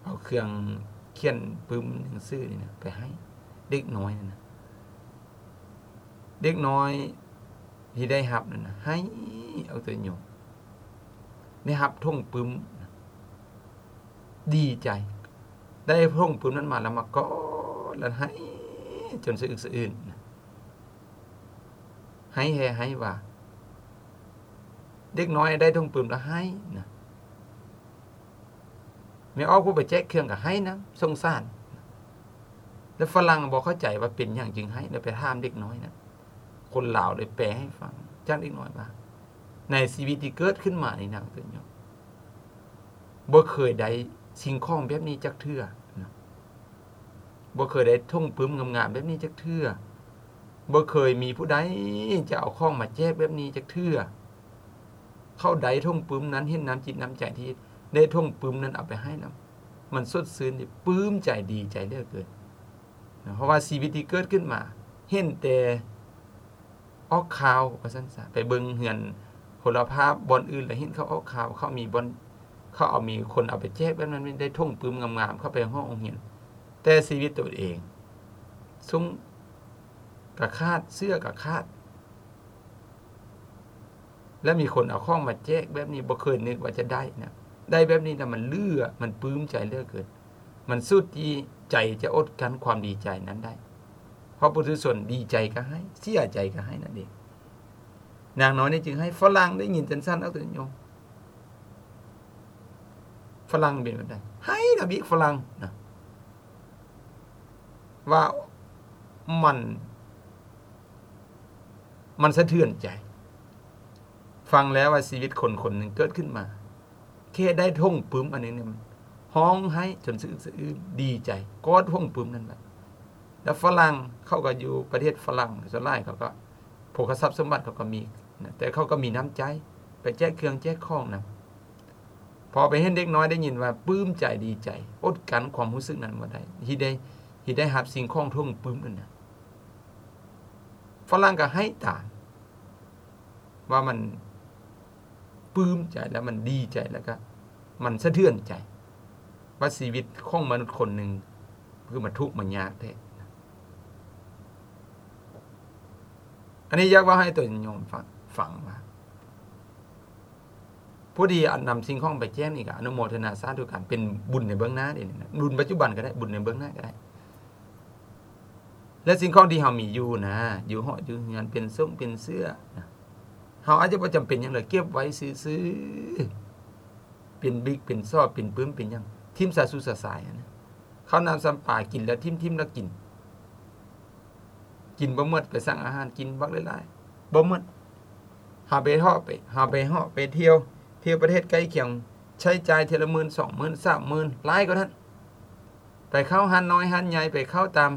ເອົາເຄື່ອງຂຽນປຶ້ມໜັງສືນີ້ນະ ໄປໃຫ້ເດັກນ້ອຍນັ້ນນະ. ເດັກນ້ອຍທີ່ໄດ້ຮັບນັ້ນນະ ໄຫ້ ເອົາແຕ່ໂຍມ ໄດ້ຮັບຖົງປຶ້ມນະ ດີໃຈ ໄດ້ຖົງປຶ້ມນັ້ນມາແລ້ວມາກອດ ແລ້ວໄຫ້ຈົນສະອຶກສະອື້ນນະ. ໄຫ້ແທ້ໄຫ້ວ່າ ເດັກນ້ອຍໄດ້ຖົງປຶ້ມແລ້ວໄຫ້ນະ. ແມ່ອອກຜູ້ໄປແຈກເຄື່ອງກະໄຫ້ນຳ ສົງສານ. ແລ້ວຝຣັ່ງບໍ່ເຂົ້າໃຈວ່າເປັນຫຍັງຈຶ່ງໄຫ້ ແລ້ວໄປຖາມເດັກນ້ອຍນະ. ຄົນລາວເລີຍແປໃຫ້ຟັງ ຈາກເດັກນ້ອຍວ່າ ໃນຊີວິດທີ່ເກີດຂຶ້ນມານີ້ນະ ບໍ່ເຄີຍໄດ້ສິ່ງຂອງແບບນີ້ຈັກເທື່ອນະ. ບໍ່ເຄີຍໄດ້ຖົງປຶ້ມງາມໆແບບນີ້ຈັກເທື່ອ. ບໍ່ເຄີຍມີຜູ້ໃດຈະເອົາຂອງມາແຈກແບບນີ້ຈັກເທື່ອ. ເຂົາໄດ້ຖົງປຶ້ມນັ້ນ ເຫັນນ້ຳຈິດນ້ຳໃຈທີ່ໄດ້ຖົງປຶ້ມນັ້ນເອົາໄປໃຫ້ນຳ ມັນສົດຊື່ນ ປຶ້ມໃຈ ດີໃຈເຫຼືອເກີນ. ເພາະວ່າຊີວິດທີ່ເກີດຂຶ້ນມາ ເຫັນແຕ່ອອກຂ່າວວ່າຊັ້ນຊະ ໄປເບິ່ງເຮືອນໂທລະພາບບ່ອນອື່ນ ແລ້ວເຫັນເຂົາອອກຂ່າວ ເຂົາມີບ່ອນ ເຂົາເອົາ ມີຄົນເອົາໄປແຈກແບບນັ້ນ ໄດ້ຖົງປຶ້ມງາມໆ ເຂົ້າໄປຫ້ອງໂຮງຮຽນ ແຕ່ຊີວິດຕົວເອງ ຊຸ້ງກະຂາດ ເສື້ອກະຂາດ ແລະ ມີຄົນເອົາຂອງມາແຈກແບບນີ້ ບໍ່ເຄີຍນຶກວ່າຈະໄດ້ນະ. ໄດ້ແບບນີ້ແລ້ວມັນເຫຼືອ ມັນປຶ້ມໃຈເຫຼືອເກີນ. ມັນສຸດທີ່ໃຈຈະອົດກັ້ນຄວາມດີໃຈນັ້ນໄດ້. ເພາະປຸຖຸຊົນດີໃຈກະໃຫ້ ເສຍໃຈກະໃຫ້ນັ້ນເອງ. ນາງນ້ອຍນີ້ຈຶ່ງໃຫ້ຝຣັ່ງໄດ້ຍິນຈັ່ງຊັ້ນ ເອົາໂຕໂຍມ. ຝຣັ່ງເປັນແບບໃດ? ໃຫ້ນຳອີກຝຣັ່ງນະ ວ່າມັນ ມັນສະເທືອນໃຈ. ຟັງແລ້ວວ່າຊີວິດຄົນຄົນໜຶ່ງເກີດຂຶ້ນມາ ແຄ່ໄດ້ຖົງປຶ້ມອັນນີ້ນີ້ ຮ້ອງໄຫ້ຈົນສະອຶກສະອື້ນ ດີໃຈ ກອດຖົງປຶ້ມນັ້ນແຫຼະ. ແລ້ວຝຣັ່ງເຂົາກໍຢູ່ປະເທດຝຣັ່ງ ສ່ວນຫຼາຍເຂົາກໍ ພວກເຂົາຊັບສົມບັດເຂົາກໍມີນະ ແຕ່ເຂົາກໍມີນ້ຳໃຈ ໄປແຈກເຄື່ອງແຈກຂອງນຳ. ພໍໄປເຫັນເດັກນ້ອຍໄດ້ຍິນວ່າປຶ້ມໃຈດີໃຈ ອົດກັ້ນຄວາມຮູ້ສຶກນັ້ນບໍ່ໄດ້ ທີ່ໄດ້ ທີ່ໄດ້ຮັບສິ່ງຂອງຖົງປຶ້ມນັ້ນນະ ຝຣັ່ງກໍໄຫ້ຕາມ ວ່າມັນປຶ້ມໃຈ ແລ້ວມັນດີໃຈ ແລ້ວກໍມັນສະເທືອນໃຈ ວ່າຊີວິດຂອງມະນຸດຄົນໜຶ່ງຄືມາທຸກມາຍາກແທ້. ອັນນີ້ຢາກເວົ້າໃຫ້ໂຕໂຍມຟັງ ຟັງວ່າ ຜູ້ທີ່ນຳສິ່ງຂອງໄປແຈກນີ້ກໍອະນຸໂມທະນາສາທຸກັນ ເປັນບຸນໃນເບື້ອງໜ້າເດ້ນີ້ນະ ບຸນປັດຈຸບັນກໍໄດ້ ບຸນໃນເບື້ອງໜ້າກໍໄດ້. ແລະ ສິ່ງຂອງທີ່ເຮົາມີຢູ່ນະ ຢູ່ຫໍຢູ່ເຮືອນ ເປັນສົ້ງເປັນເສື້ອນະ ເຮົາອາດຈະບໍ່ຈຳເປັນຫຍັງເລີຍ ເກັບໄວ້ຊື່ໆ ເປັນບິກເປັນຊອບ ເປັນປຶ້ມເປັນຫຍັງ ຖິ້ມສະສຸດສະສາຍຫັ້ນນະ. ເຂົ້ານ້ຳຊຳປາ ກິນແລ້ວຖິ້ມ ຖິ້ມແລ້ວກິນ ກິນບໍ່ໝົດ ໄປສັ່ງອາຫານກິນບັກຫຼາຍໆ ບໍ່ໝົດ. ເຮົາໄປເທາະ ໄປ ເຮົາໄປເທາະໄປທ່ຽວ ທ່ຽວປະເທດໃກ້ຄຽງ ໃຊ້ຈ່າຍເທື່ອລະໝື່ນ ສອງໝື່ນ ສາມໝື່ນ ຫຼາຍກວ່ານັ້ນ. ໄປເຂົ້າຮ້ານນ້ອຍຮ້ານໃຫຍ່ ໄປເຂົ້າຕາມ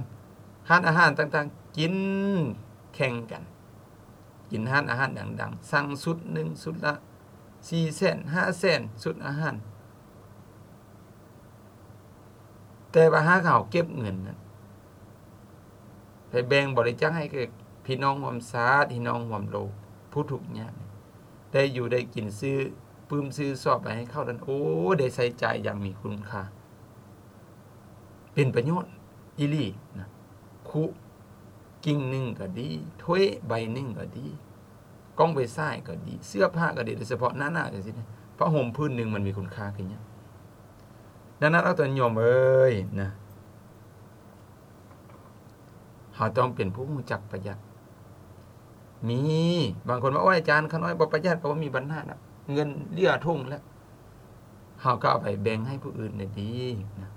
ຮ້ານອາຫານຕ່າງໆ ກິນແຂ່ງກັນ ກິນຮ້ານອາຫານດັງໆ ສັ່ງຊຸດໜຶ່ງ ຊຸດລະສີ່ແສນ ຫ້າແສນ ຊຸດອາຫານ. ແຕ່ວ່າຫາກເຮົາເກັບເງິນນັ້ນ ໄປແບ່ງບໍລິຈາກໃຫ້ແກ່ພີ່ນ້ອງຮ່ວມຊາດ ພີ່ນ້ອງຮ່ວມໂລກ ຜູ້ທຸກຍາກ ໄດ້ຢູ່ໄດ້ກິນ ຊື້ປຶ້ມຊື້ຊອບໄປໃຫ້ເຂົານັ້ນ ໂອ້ ໄດ້ໃຊ້ຈ່າຍຢ່າງມີຄຸນຄ່າ ເປັນປະໂຫຍດອີ່ຫຼີນະ. ຄຸກິ່ງໜຶ່ງກໍດີ ຖ້ວຍໃບໜຶ່ງກໍດີ ກ້ອງໄຟສາຍກໍດີ ເສື້ອຜ້າກໍດີ ໂດຍສະເພາະໜ້າໜາວຈັ່ງຊີ້ນະ ຜ້າຫົ່ມຜືນໜຶ່ງມັນມີຄຸນຄ່າຄືຫຍັງ? ດັ່ງນັ້ນ ເອົາໂຕໂຍມເອີຍນະ ເຮົາຕ້ອງເປັນຜູ້ຮູ້ຈັກປະຢັດ. ມີບາງຄົນວ່າ ໂອ້ຍ ອາຈານ ຂ້ານ້ອຍບໍ່ປະຢັດກໍບໍ່ມີບັນຫາດອກ ເງິນເຫຼືອຖົງແລ້ວ ເຮົາກໍເອົາໄປແບ່ງໃຫ້ຜູ້ອື່ນໄດ້ດີນະ.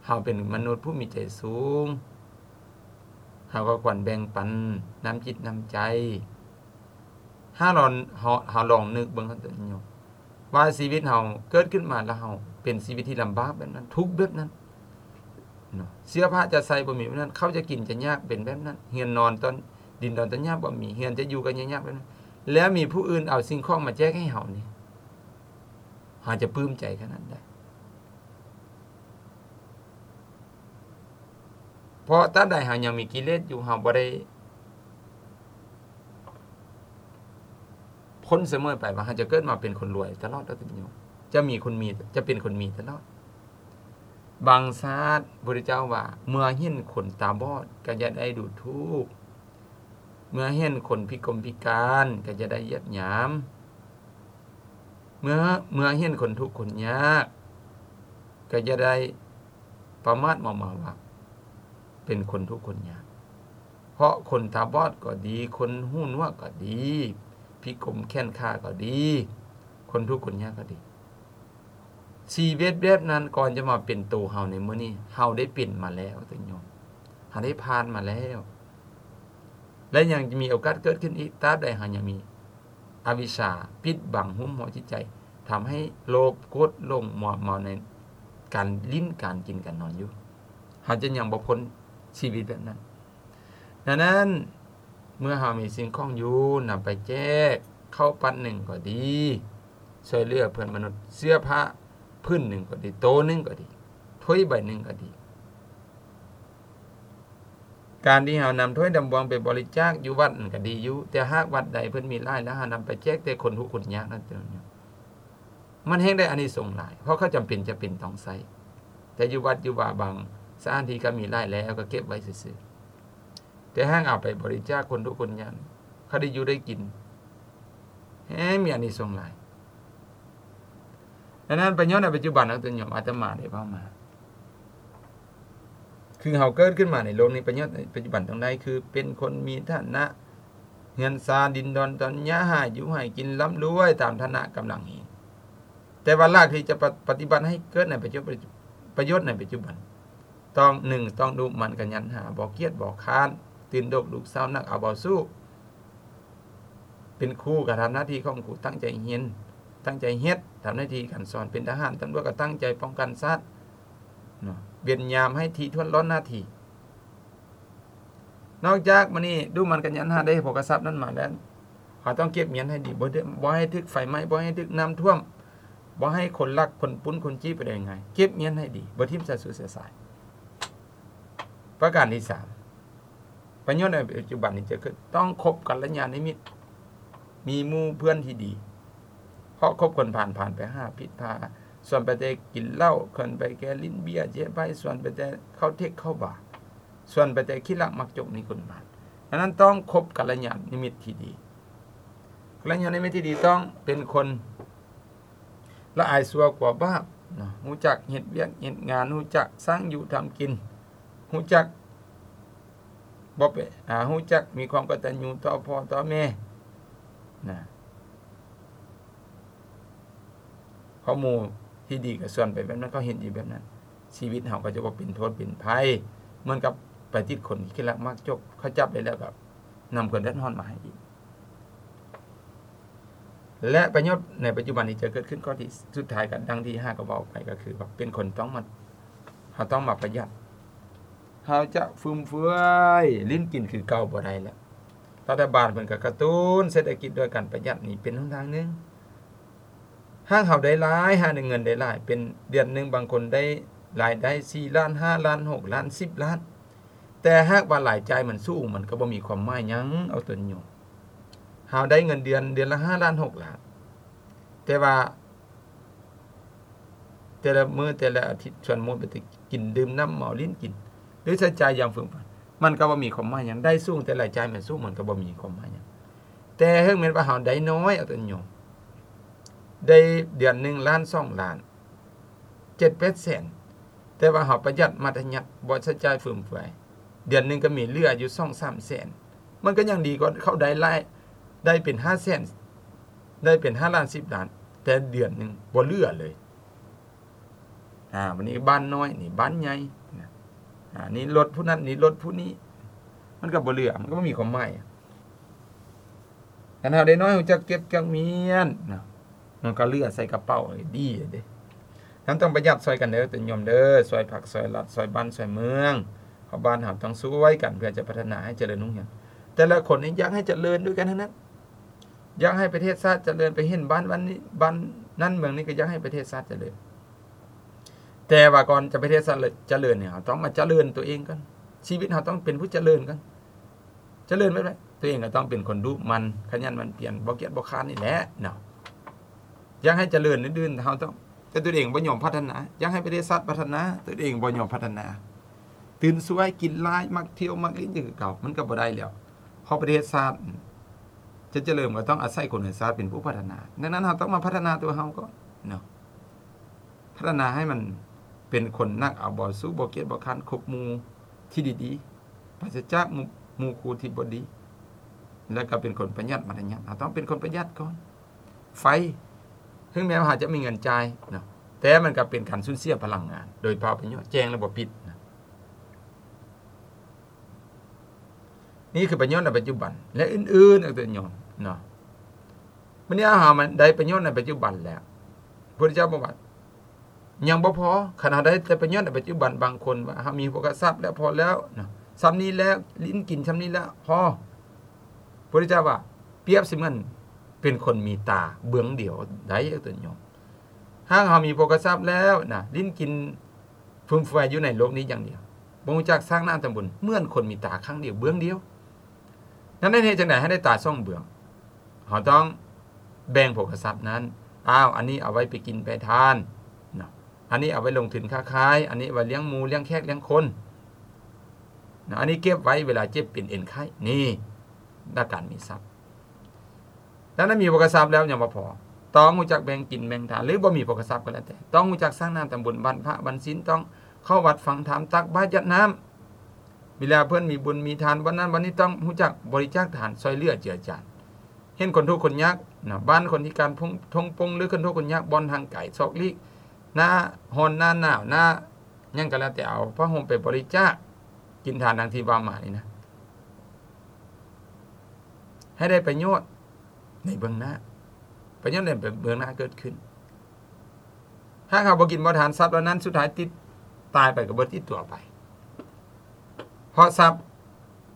ເຮົາເປັນມະນຸດຜູ້ມີໃຈສູງ ເຮົາກໍຄວນແບ່ງປັນນ້ຳຈິດນ້ຳໃຈ. ຖ້າເຮົາ ເຮົາ ເຮົາລອງນຶກເບິ່ງ ທ່ານໂຍມ ວ່າຊີວິດເຮົາເກີດຂຶ້ນມາແລ້ວ ເຮົາເປັນຊີວິດທີ່ລຳບາກແບບນັ້ນ ທຸກແບບນັ້ນເນາະ ເສື້ອຜ້າຈະໃສ່ບໍ່ມີແບບນັ້ນ ເຂົ້າຈະກິນຈະຍາກເປັນແບບນັ້ນ ເຮືອນນອນຕອນ ດິນດອນຕອນຫຍ້າບໍ່ມີ ເຮືອນຈະຢູ່ກໍຍາກແບບນັ້ນ ແລ້ວມີຜູ້ອື່ນເອົາສິ່ງຂອງມາແຈກໃຫ້ເຮົານີ້ ເຮົາຈະປຶ້ມໃຈຂະໜາດໃດ? ເພາະຕາບໃດເຮົາຍັງມີກິເລດຢູ່ ເຮົາບໍ່ໄດ້ພົ້ນສະເໝີໄປວ່າເຮົາຈະເກີດມາເປັນຄົນລວຍຕະຫຼອດດອກ ທ່ານໂຍມ ຈະມີຄົນມີ ຈະເປັນຄົນມີຕະຫຼອດ. ບາງຊາດ ພະພຸດທະເຈົ້າວ່າ ເມື່ອເຫັນຄົນຕາບອດກໍຢ່າໄດ້ດູຖູກ ເມື່ອເຫັນຄົນພິກົມພິການກໍຢ່າໄດ້ຢຽບຫຍາມ ເມື່ອ ເມື່ອເຫັນຄົນທຸກຄົນຍາກກໍຢ່າໄດ້ປະໝາດເມົາເມົາວ່າເປັນຄົນທຸກຄົນຍາກ ເພາະຄົນຕາບອດກໍດີ ຄົນຫູໜວກກໍດີ ພິກົມແຂນຂາກໍດີ ຄົນທຸກຄົນຍາກກໍດີ ຊີວິດແບບນັ້ນ ກ່ອນຈະມາເປັນໂຕເຮົາໃນມື້ນີ້ ເຮົາໄດ້ເປັນມາແລ້ວ ທ່ານໂຍມ ເຮົາໄດ້ຜ່ານມາແລ້ວ ແລະ ຍັງຈະມີໂອກາດເກີດຂຶ້ນອີກ ຕາບໃດເຮົາຍັງມີອະວິຊາປິດບັງຫຸ້ມຫໍ້ຈິດໃຈ ທຳໃຫ້ໂລບ ໂກດ ຫຼົງ ມົວເມົາໃນການຫຼິ້ນ ການກິນ ການນອນຢູ່ ເຮົາຈະຍັງບໍ່ພົ້ນຊີວິດແບບນັ້ນ. ດັ່ງນັ້ນ ເມື່ອເຮົາມີສິ່ງຂອງຢູ່ ນຳໄປແຈກ ເຂົ້າປັດໜຶ່ງກໍດີ ຊ່ວຍເຫຼືອເພື່ອນມະນຸດ ເສື້ອຜ້າຜືນໜຶ່ງກໍດີ ໂຕໜຶ່ງກໍດີ ຖ້ວຍໃບໜຶ່ງກໍດີ ການທີ່ເຮົານຳຖ້ວຍນຳບ່ວງໄປບໍລິຈາກຢູ່ວັດນັ້ນກໍດີຢູ່ ແຕ່ຫາກວັດໃດເພິ່ນມີຫຼາຍແລ້ວ ເຮົານຳໄປແຈກແຕ່ຄົນທຸກຄົນຍາກນັ້ນ ມັນແຮ່ງໄດ້ອານິສົງຫຼາຍ ເພາະເຂົາຈຳເປັນຈະເປັນຕ້ອງໃຊ້ ແຕ່ຢູ່ວັດຢູ່ວາບາງສະຖານທີ່ກໍມີຫຼາຍແລ້ວ ກໍເກັບໄວ້ຊື່ໆ ແຕ່ຫາກເອົາໄປບໍລິຈາກຄົນທຸກຄົນຍາກ ເຂົາໄດ້ຢູ່ໄດ້ກິນ ແຮ່ງມີອານິສົງຫຼາຍ. ດັ່ງນັ້ນ ປະໂຫຍດໃນປັດຈຸບັນ ທ່ານໂຍມ ອາດຕະມາໄດ້ເວົ້າມາ ຄືເຮົາເກີດຂຶ້ນມາໃນໂລກນີ້ ປະໂຫຍດໃນປັດຈຸບັນຕ້ອງໄດ້ ຄືເປັນຄົນມີຖານະ ເຮືອນຊານດິນດອນຕອນຫຍ້າ ໃຫ້ຢູ່ໃຫ້ກິນ ລ່ຳລວຍຕາມຖານະກຳລັງເຮງ. ແຕ່ວ່າຫຼັກທີ່ຈະປະ ປະຕິບັດໃຫ້ເກີດໃນປະຈຸ ປະໂຫຍດໃນປັດຈຸບັນ ຕ້ອງ ໜຶ່ງ ຕ້ອງດຸໝັ່ນຂະຫຍັນຫາ ບໍ່ກຽດບໍ່ຄ້ານ ຕື່ນດົກລຸກເຊົ້າ ໜັກເອົາເບົາສູ້. ເປັນຄູກໍທຳໜ້າທີ່ຂອງຄູ ຕັ້ງໃຈຮຽນ ຕັ້ງໃຈເຮັດ ທຳໜ້າທີ່ການສອນ. ເປັນທະຫານຕຳຫຼວດກໍຕັ້ງໃຈປ້ອງກັນຊາດເນາະ ເວນຍາມໃຫ້ຖີ່ຖ້ວນລ້ອນໜ້າທີ່. ນອກຈາກມື້ນີ້ດຸໝັ່ນຂະຫຍັນຫາ ໄດ້ໂພກະຊັບນັ້ນມາແລ້ວ ເຮົາຕ້ອງເກັບຮຽນໃຫ້ດີ ບໍ່ໄດ້ ບໍ່ໃຫ້ຖືກໄຟໄໝ້ ບໍ່ໃຫ້ຖືກນ້ຳຖ້ວມ ບໍ່ໃຫ້ຄົນລັກຄົນປຸ້ນຄົນຈີ້ໄປໄດ້ງ່າຍ. ເກັບຮຽນໃຫ້ດີ ບໍ່ຖິ້ມສະສຸດສະສາຍ. ປະການທີສາມ ປະໂຫຍດໃນປັດຈຸບັນນີ້ຈະເກີດ ຕ້ອງຄົບກັນລະຍານມິດ ມີໝູ່ເພື່ອນທີ່ດີ ເພາະຄົບຄົນພານ ພານໄປຫາຜິດພາ ຊວນໄປແຕ່ກິນເຫຼົ້າ ຊວນໄປແຕ່ຫຼິ້ນເບຍເຈຍໄປ ຊວນໄປແຕ່ເຂົ້າເທັກເຂົ້າບາ ຊວນໄປແຕ່ຂີ້ລັກມັກຈົກ ມີຄົນພານ. ສະນັ້ນຕ້ອງຄົບກັນລະຍານມິດທີ່ດີ ກັນລະຍານມິດທີ່ດີຕ້ອງເປັນຄົນລະອາຍຊົ່ວກວ່າບາບເນາະ ຮູ້ຈັກເຮັດວຽກເຮັດງານ ຮູ້ຈັກສ້າງຢູ່ທຳກິນ ຮູ້ຈັກ ບໍ່ເປັນ ອາ ຮູ້ຈັກມີຄວາມກະຕັນຍູຕໍ່ພໍ່ຕໍ່ແມ່ນະ. ເພາະໝູ່ທີ່ດີກໍຊວນໄປແບບນັ້ນ ເຂົາເຮັດຢູ່ແບບນັ້ນ ຊີວິດເຮົາກໍຈະບໍ່ເປັນໂທດເປັນໄພ ເໝືອນກັບໄປຕິດຄົນທີ່ຂີ້ລັກມັກຈົກ ເຂົາຈັບໄດ້ແລ້ວກໍນຳຄວາມເດືອດຮ້ອນມາໃຫ້ອີກ. ແລະ ປະໂຫຍດໃນປັດຈຸບັນນີ້ຈະເກີດຂຶ້ນ ຂໍ້ທີ່ສຸດທ້າຍ ກັນດັ່ງທີ່ຫາກໍເວົ້າໄປ ກໍຄືວ່າເປັນຄົນຕ້ອງມາ ເຮົາຕ້ອງມາປະຢັດ ເຮົາຈະຟຸມເຟືອຍ ຫຼິ້ນກິນຄືເກົ່າບໍ່ໄດ້ແລ້ວ. ລັດຖະບານເພິ່ນກໍກະຕຸ້ນເສດຖະກິດດ້ວຍການປະຢັດ ນີ້ເປັນຫົນທາງໜຶ່ງ. ຫາກເຮົາໄດ້ຫຼາຍ ຫາເງິນໄດ້ຫຼາຍ ເປັນເດືອນໜຶ່ງ ບາງຄົນໄດ້ລາຍໄດ້ສີ່ລ້ານ ຫ້າລ້ານ ຫົກລ້ານ ສິບລ້ານ ແຕ່ຫາກວ່າລາຍຈ່າຍມັນສູງ ມັນກໍບໍ່ມີຄວາມໝາຍຫຍັງ ເອົາຕົນໂຍມ. ເຮົາໄດ້ເງິນເດືອນ ເດືອນລະຫ້າລ້ານ ຫົກລ້ານ ແຕ່ວ່າ ແຕ່ລະມື້ແຕ່ລະອາທິດ ສ່ວນໝົດໄປແຕ່ກິນດື່ມນ້ຳເມົາຫຼິ້ນກິນ ຫຼືໃຊ້ຈ່າຍຢ່າງຟຶມຟາຍ ມັນກໍບໍ່ມີຄວາມໝາຍຫຍັງ. ໄດ້ສູງແຕ່ລາຍຈ່າຍມັນສູງ ມັນກໍບໍ່ມີຄວາມໝາຍຫຍັງ. ແຕ່ເຖິງແມ່ນວ່າເຮົາໄດ້ນ້ອຍ ເອົາຕົນໂຍມ ໄດ້ເດືອນໜຶ່ງລ້ານ ສອງລ້ານ ເຈັດແປດແສນ ແຕ່ວ່າເຮົາປະຢັດມັດທະຍັດ ບໍ່ໃຊ້ຈ່າຍຟຶມເຟືອຍ ເດືອນໜຶ່ງກໍມີເຫຼືອຢູ່ສອງສາມແສນ ມັນກໍຍັງດີກວ່າເຂົາໄດ້ຫຼາຍ ໄດ້ເປັນຫ້າແສນ ໄດ້ເປັນຫ້າລ້ານ ສິບລ້ານ ແຕ່ເດືອນໜຶ່ງບໍ່ເຫຼືອເລີຍ. ອາ ບັດນີ້ບ້ານນ້ອຍ ນີ້ບ້ານໃຫຍ່ນະ ອາ ນີ້ລົດຜູ້ນັ້ນ ນີ້ລົດຜູ້ນີ້ ມັນກໍບໍ່ເຫຼືອ ມັນກໍບໍ່ມີຄວາມໝາຍ. ຄັນເຮົາໄດ້ນ້ອຍ ຮູ້ຈັກເກັບຈັກມ້ຽນເນາະ ມັນກໍເຫຼືອໃສ່ກະເປົາ ເອີ ດີເດ້. ນຳຕ້ອງປະຢັດຊ່ອຍກັນເດີ ໂຍມເດີ ຊ່ອຍພັກ ຊ່ອຍລັດ ຊ່ອຍບ້ານ ຊ່ອຍເມືອງ ເພາະບ້ານເຮົາຕ້ອງຊ່ວຍກັນ ເພື່ອຈະພັດທະນາໃຫ້ຈະເລີນຮຸ່ງເຮືອງ. ແຕ່ລະຄົນນີ້ຢາກໃຫ້ຈະເລີນດ້ວຍກັນທັງນັ້ນ ຢາກໃຫ້ປະເທດຊາດຈະເລີນ. ໄປເຫັນບ້ານ ບ້ານນີ້ ບ້ານນັ້ນເມືອງນີ້ ກໍຢາກໃຫ້ປະເທດຊາດຈະເລີນ. ແຕ່ວ່າກ່ອນຈະປະເທດຊາດຈະເລີນນີ້ ເຮົາຕ້ອງມາຈະເລີນຕົວເອງກ່ອນ. ຊີວິດເຮົາຕ້ອງເປັນຜູ້ຈະເລີນກ່ອນ. ຈະເລີນແບບໃດ? ຕົວເອງກໍຕ້ອງເປັນຄົນດຸໝັ່ນ ຂະຫຍັນໝັ່ນພຽນ ບໍ່ກຽດບໍ່ຄ້ານນີ້ແຫຼະເນາະ. ຢາກໃຫ້ຈະເລີນອື່ນໆ ເຮົາຕ້ອງ ແຕ່ຕົວເອງບໍ່ຍອມພັດທະນາ. ຢາກໃຫ້ປະເທດຊາດພັດທະນາ ຕົວເອງບໍ່ຍອມພັດທະນາ. ຕື່ນສວຍ ກິນຫຼາຍ ມັກທ່ຽວ ມັກຫຼິ້ນຢູ່ຄືເກົ່າ ມັນກໍບໍ່ໄດ້ແລ້ວ. ເພາະປະເທດຊາດຈະຈະເລີນ ກໍຕ້ອງອາໄສຄົນໃນຊາດເປັນຜູ້ພັດທະນາ. ດັ່ງນັ້ນ ເຮົາຕ້ອງມາພັດທະນາຕົວເຮົາກ່ອນເນາະ. ພັດທະນາໃຫ້ມັນເປັນຄົນໜັກເອົາເບົາສູ້ ບໍ່ກຽດບໍ່ຄ້ານ ຄົບໝູ່ທີ່ດີໆ ປາສະຈາກໝູ່ ໝູ່ຄູ່ທີ່ບໍ່ດີ ແລ້ວກໍເປັນຄົນປະຢັດມັດທະຍັດ. ເຮົາຕ້ອງເປັນຄົນປະຢັດກ່ອນ. ໄຟ ເຖິງແມ່ນວ່າເຮົາຈະມີເງິນຈ່າຍເນາະ ແຕ່ມັນກໍເປັນການສູນເສຍພະລັງງານໂດຍເປົ່າປະໂຫຍດ ແຈ້ງແລ້ວບໍ່ປິດນະ. ນີ້ຄືປະໂຫຍດໃນປັດຈຸບັນ ແລະ ອື່ນໆ ເອີ ໂຍມເນາະ. ມື້ນີ້ເຮົາມາໄດ້ປະໂຫຍດໃນປັດຈຸບັນແລ້ວ ພະພຸດທະເຈົ້າບອກວ່າຍັງບໍ່ພໍ. ຄັນເຮົາໄດ້ແຕ່ປະໂຫຍດໃນປັດຈຸບັນ ບາງຄົນວ່າເຮົາມີໂພກະຊັບແລ້ວ ພໍແລ້ວເນາະ ຊ່ຳນີ້ແລ້ວ ຫຼິ້ນກິນຊ່ຳນີ້ແລ້ວ ພໍ. ພະພຸດທະເຈົ້າວ່າ ປຽບສະເໝືອນເປັນຄົນມີຕາເບື້ອງດຽວໄດ້ ໂຍມ. ຫາກເຮົາມີໂພກະຊັບແລ້ວນະ ຫຼິ້ນກິນ ຟຸມເຟືອຍຢູ່ໃນໂລກນີ້ຢ່າງດຽວ ບໍ່ຮູ້ຈັກສ້າງນ້ຳທຳບຸນ ເໝືອນຄົນມີຕາຂ້າງດຽວເບື້ອງດຽວ. ນັ້ນເຮັດຈັ່ງໃດໃຫ້ໄດ້ຕາສອງເບື້ອງ? ເຮົາຕ້ອງແບ່ງໂພກະຊັບນັ້ນ ອ້າວ ອັນນີ້ເອົາໄວ້ໄປກິນໄປທານເນາະ ອັນນີ້ເອົາໄວ້ລົງທຶນຄ້າຂາຍ ອັນນີ້ໄວ້ລ້ຽງໝູ ລ້ຽງແຂກ ລ້ຽງຄົນເນາະ ອັນນີ້ເກັບໄວ້ເວລາເຈັບເປັນເອັນໄຂ້. ນີ້ ຫຼັກການມີຊັບ. ດັ່ງນັ້ນ ມີໂພກະຊັບແລ້ວຍັງບໍ່ພໍ ຕ້ອງຮູ້ຈັກແບ່ງກິນແບ່ງທານ ຫຼືບໍ່ມີໂພກະຊັບກໍແລ້ວແຕ່ ຕ້ອງຮູ້ຈັກສ້າງນ້ຳທຳບຸນ ວັນພະວັນສິນ ຕ້ອງເຂົ້າວັດຟັງທຳ ຕັກບາດ ຢາດນ້ຳ ເວລາເພິ່ນມີບຸນມີທານ ບ່ອນນັ້ນບ່ອນນີ້ ຕ້ອງຮູ້ຈັກບໍລິຈາກທານ ຊ່ອຍເຫຼືອເຈືອຈານ ເຫັນຄົນທຸກຄົນຍາກນະ ບ້ານຄົນພິການ ທົ່ງ ທົ່ງປົງ ຫຼືຄົນທຸກຄົນຍາກ ບ່ອນທາງໄກ ຊອກຫຼີກ ໜ້າຮ້ອນ ໜ້າໜາວ ໜ້າຫຍັງກໍແລ້ວແຕ່ ເອົາຜ້າຫົ່ມໄປບໍລິຈາກ ກິນທານດັ່ງທີ່ວ່າມານີ້ນະ ໃຫ້ໄດ້ປະໂຫຍດໃນເບື້ອງໜ້າ ປະໂຫຍດໃນເບື້ອງໜ້າເກີດຂຶ້ນ. ຫາກເຮົາບໍ່ກິນບໍ່ທານ ຊັບເຫຼົ່ານັ້ນສຸດທ້າຍຕິດ ຕາຍໄປກໍບໍ່ຕິດຕົວໄປ ເພາະຊັບ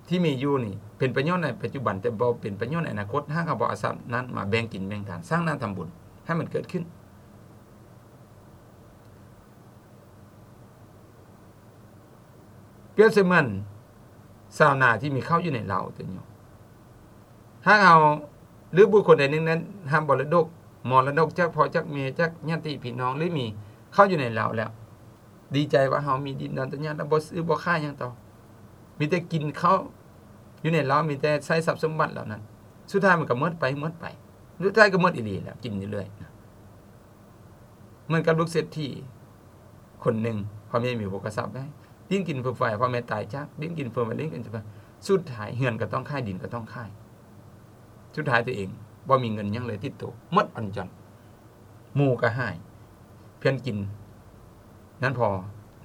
ທີ່ມີຢູ່ນີ້ເປັນປະໂຫຍດໃນປັດຈຸບັນ ແຕ່ບໍ່ເປັນປະໂຫຍດໃນອະນາຄົດ. ຫາກເຮົາບໍ່ເອົາຊັບນັ້ນມາແບ່ງກິນແບ່ງທານ ສ້າງໜ້າທຳບຸນໃຫ້ມັນເກີດຂຶ້ນ ປຽບສະເໝືອນຊາວນາທີ່ມີເຂົ້າຢູ່ໃນເລົ້າຕົວນີ້ ຫາກເຮົາ ຫຼືບຸກຄົນໃດໜຶ່ງນັ້ນຮັບມໍລະດົກ ມໍລະດົກຈາກພໍ່ຈາກແມ່ ຈາກຍາດຕິພີ່ນ້ອງ ຫຼືມີເຂົ້າຢູ່ໃນເລົ້າແລ້ວ ດີໃຈວ່າເຮົາມີດິນດອນຕະຍາດ ແລ້ວບໍ່ຊື້ບໍ່ຂາຍຫຍັງຕໍ່ ມີແຕ່ກິນເຂົ້າຢູ່ໃນເລົ້າ ມີແຕ່ໃຊ້ຊັບສົມບັດເຫຼົ່ານັ້ນ ສຸດທ້າຍມັນກໍໝົດໄປ ໝົດໄປ ສຸດທ້າຍກໍໝົດອີ່ຫຼີແລ້ວ ກິນຢູ່ເລື້ອຍນະ. ເໝືອນກັບລູກເສດຖີຄົນໜຶ່ງ ພໍ່ແມ່ມີໂພກະຊັບໄດ້ ດິ້ນກິນເຟືອໄຟ ພໍ່ແມ່ຕາຍຈາກ ດິ້ນກິນເຟືອໄຟ ດິ້ນກິນເຟືອໄຟ ສຸດທ້າຍເຮືອນກໍຕ້ອງຂາຍ ດິນກໍຕ້ອງຂາຍ ສຸດທ້າຍຕົວເອງບໍ່ມີເງິນຫຍັງເລີຍຕິດໂຕ ໝົດອັນຈອນ ໝູ່ກໍຫາຍ ເພື່ອນກິນນັ້ນພໍ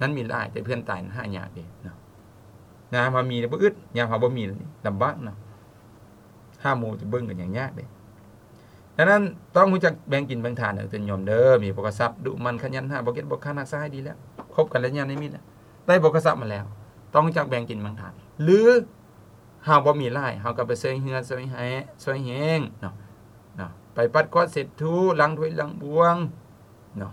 ນັ້ນມີຫຼາຍ ແຕ່ເພື່ອນຕາຍນັ້ນຫາຍາກເດ້ເນາະ. ຍາມເຮົາມີແລ້ວບໍ່ອຶດ ຍາມເຮົາບໍ່ມີແລ້ວນີ້ລຳບາກເນາະ ຫາໝູ່ຈະເບິ່ງກໍຍັງຍາກເດ້. ດັ່ງນັ້ນຕ້ອງຮູ້ຈັກແບ່ງກິນແບ່ງທານເດີໂຍມເດີ ມີໂພກະຊັບ ດຸໝັ່ນຂະຫຍັນ ຫາບໍ່ກຽດບໍ່ຄ້ານ ຮັກສາໃຫ້ດີແລ້ວ ຄົບກັນແລ້ວຍາມນີ້ມີແລ້ວ ໄດ້ໂພກະຊັບມາແລ້ວ ຕ້ອງຮູ້ຈັກແບ່ງກິນແບ່ງທານ ຫຼືເຮົາບໍ່ມີຫຼາຍ ເຮົາກໍໄປຊ່ວຍເຫຼືອ ຊ່ວຍແຮງ ຊ່ວຍແຮງເນາະ ເນາະ ໄປປັດກວາດເຊັດຖູ ລ້າງຖ້ວຍລ້າງບ່ວງເນາະ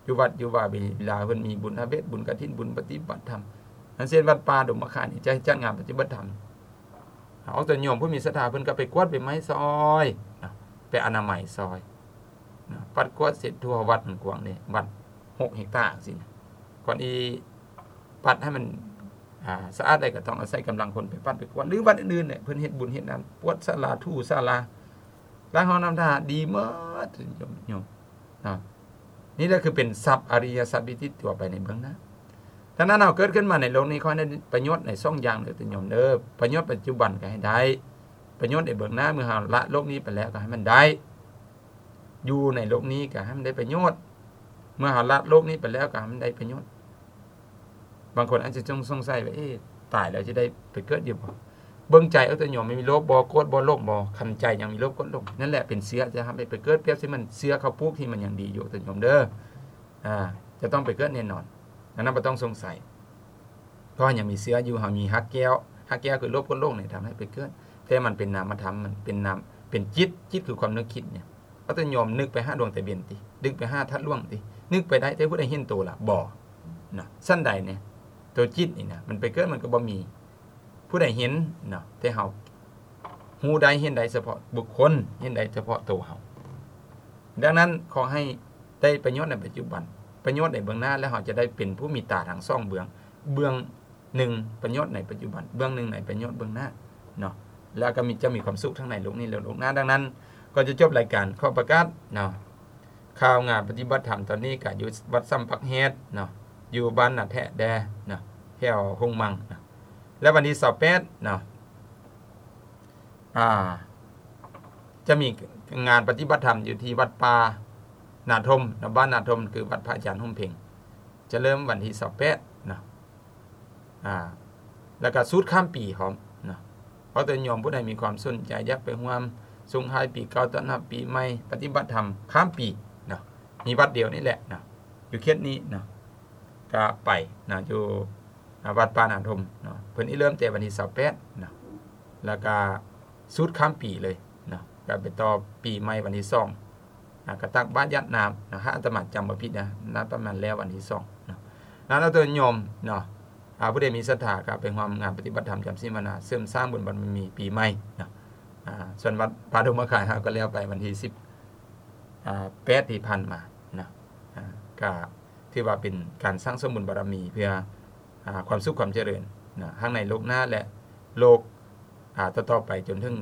ຢູ່ວັດຢູ່ວາ ເວລາເພິ່ນມີບຸນພະເວດ ບຸນກະຖິນ ບຸນປະຕິບັດທຳ ອັນເຊັ່ນວັດປ່າດົງມະຂາມນີ້ ຈະຈັດງານປະຕິບັດທຳ ອອກຕົນໂຍມຜູ້ມີສັດທາ ເພິ່ນກໍໄປກວາດໃບໄມ້ຊ່ອຍເນາະ ໄປອະນາໄມຊ່ອຍເນາະ ປັດກວາດເຊັດທົ່ວວັດ ມັນກວ້າງເດ້ ວັດຫົກເຮັກຕາຈັ່ງຊີ້ນະ ກ່ອນອີ່ປັດໃຫ້ມັນ ອ່າ ສະອາດໄດ້ ກໍຕ້ອງອາໄສກຳລັງຄົນໄປປັດໄປກວາດ ຫຼືວັດອື່ນໆແຫຼະ ເພິ່ນເຮັດບຸນເຮັດນານ ກວາດສາລາ ຖູສາລາ ລ້າງຫ້ອງນ້ຳທ່າ ດີໝົດໂຍມ ໂຍມເນາະ. ນີ້ແຫຼະຄືເປັນຊັບອະລິຍະຊັບທີ່ຕິດຕົວໄປໃນເບື້ອງໜ້າ. ດັ່ງນັ້ນ ເຮົາເກີດຂຶ້ນມາໃນໂລກນີ້ ຂໍໃຫ້ໄດ້ປະໂຫຍດໃນສອງຢ່າງເດີໂຍມເດີ ປະໂຫຍດປັດຈຸບັນກໍໃຫ້ໄດ້ ປະໂຫຍດໃນເບື້ອງໜ້າ ເມື່ອເຮົາລະໂລກນີ້ໄປແລ້ວກໍໃຫ້ມັນໄດ້ ຢູ່ໃນໂລກນີ້ກໍໃຫ້ມັນໄດ້ປະໂຫຍດ ເມື່ອເຮົາລະໂລກນີ້ໄປແລ້ວກໍໃຫ້ມັນໄດ້ປະໂຫຍດ. ບາງຄົນອາດຈະສົງ ສົງໄສວ່າ ເອ ຕາຍແລ້ວຈະໄດ້ໄປເກີດຢູ່ບໍ່? ເບິ່ງໃຈເອົາໂຕໂຍມ ມີໂລບບໍ່ ໂກດບໍ່ ຫຼົງບໍ່? ຄັນໃຈຍັງມີໂລບ ໂກດ ຫຼົງ ນັ້ນແຫຼະເປັນເຊື້ອຈະທຳໃຫ້ໄປເກີດ. ປຽບເຊັ່ນມັນເຊື້ອເຂົ້າປູກທີ່ມັນຍັງດີຢູ່ໂຕໂຍມເດີ ອາ ຈະຕ້ອງໄປເກີດແນ່ນອນ ອັນນັ້ນບໍ່ຕ້ອງສົງໄສ ເພາະຍັງມີເຊື້ອຢູ່ ເຮົາມີຮາກແກ້ວ ຮາກແກ້ວຄືໂລບ ໂກດ ຫຼົງນີ້ ທຳໃຫ້ໄປເກີດ ແຕ່ມັນເປັນນາມະທຳ ມັນເປັນນາມ ເປັນຈິດ ຈິດຄືຄວາມນຶກຄິດນີ້ ເອົາໂຕໂຍມນຶກໄປຫາດວງຕາເວັນຕິ ນຶກໄປຫາທາດຫຼວງຕິ ນຶກໄປໄດ້ ແຕ່ຜູ້ໃດເຫັນໂຕລະ? ບໍ່ເນາະ. ຊັ້ນໃດແນ່ ໂຕຈິດນີ້ນະ ມັນໄປເກີດມັນກໍບໍ່ມີຜູ້ໃດເຫັນເນາະ ແຕ່ເຮົາຮູ້ໄດ້ເຫັນໄດ້ສະເພາະບຸກຄົນ ເຫັນໄດ້ສະເພາະໂຕເຮົາ. ດັ່ງນັ້ນ ຂໍໃຫ້ໄດ້ປະໂຫຍດໃນປັດຈຸບັນ ປະໂຫຍດໃນເບື້ອງໜ້າ ແລ້ວເຮົາຈະໄດ້ເປັນຜູ້ມີຕາທັງສອງເບື້ອງ ເບື້ອງ ໜຶ່ງ ປະໂຫຍດໃນປັດຈຸບັນ ເບື້ອງໜຶ່ງໃນປະໂຫຍດເບື້ອງໜ້າເນາະ ແລ້ວກໍມີ ຈະມີຄວາມສຸກທັງໃນໂລກນີ້ ແລະ ໂລກໜ້າ. ດັ່ງນັ້ນ ກ່ອນຈະຈົບລາຍການ ຂໍປະກາດເນາະ ຂ່າວງານປະຕິບັດທຳຕອນນີ້ກໍຢູ່ວັດສຳປັກແຮດເນາະ ຢູ່ບ້ານນາແທະແດ່ເນາະ ແຖວຫົງມັງເນາະ ແລະ ວັນທີຊາວແປດເນາະ ອ່າ ຈະມີງານປະຕິບັດທຳຢູ່ທີ່ວັດປ່ານາທົມເນາະ ບ້ານນາທົມ ຄືວັດພະອາຈານຮົ່ມເພັງ ຈະເລີ່ມວັນທີຊາວແປດເນາະ. ອ່າ ແລ້ວກໍສູດຂ້າມປີພ້ອມເນາະ ເພາະໂຕໂຍມຜູ້ໃດມີຄວາມສົນໃຈຢາກໄປຮ່ວມສົ່ງທ້າຍປີເກົ່າ ຕ້ອນຮັບປີໃໝ່ ປະຕິບັດທຳຂ້າມປີເນາະ ມີວັດດຽວນີ້ແຫຼະເນາະ ຢູ່ເຂດນີ້ເນາະ ກໍໄປເນາະ ຢູ່ ອ່າ ວັດປ່ານາທົມເນາະ ເພິ່ນຊິເລີ່ມແຕ່ວັນທີຊາວແປດເນາະ ແລ້ວກໍສູດຂ້າມປີເລີຍເນາະ ກໍໄປຕໍ່ປີໃໝ່ວັນທີສອງ ອ່າ ກະຕັກບາດຢາດນ້ຳນະ ຫາກອາດຕະມາຈຳບໍ່ຜິດນະ ໜ້າປະມານແລ້ວວັນທີສອງເນາະ. ນັ້ນເອົາໂຕໂຍມເນາະ ອ່າ ຜູ້ໃດມີສັດທາກໍໄປຮ່ວມງານປະຕິບັດທຳຈຳສິນພາວະນາ ເສີມສ້າງບຸນບາລະມີປີໃໝ່ເນາະ. ອ່າ ສ່ວນວັດປ່າດົງມະຂາມເຮົາກໍແລ້ວໄປວັນທີສິບ ອ່າ ແປດທີ່ຜ່ານມາເນາະ ອ່າ ກະຖືວ່າເປັນການສ້າງສົມບຸນບາລະມີເພື່ອ ອ່າ ຄວາມສຸກຄວາມຈະເລີນນະ ທັງໃນໂລກໜ້າ ແລະ ໂລກ ອ່າ ຕໍ່ໆໄປຈົນເຖິງ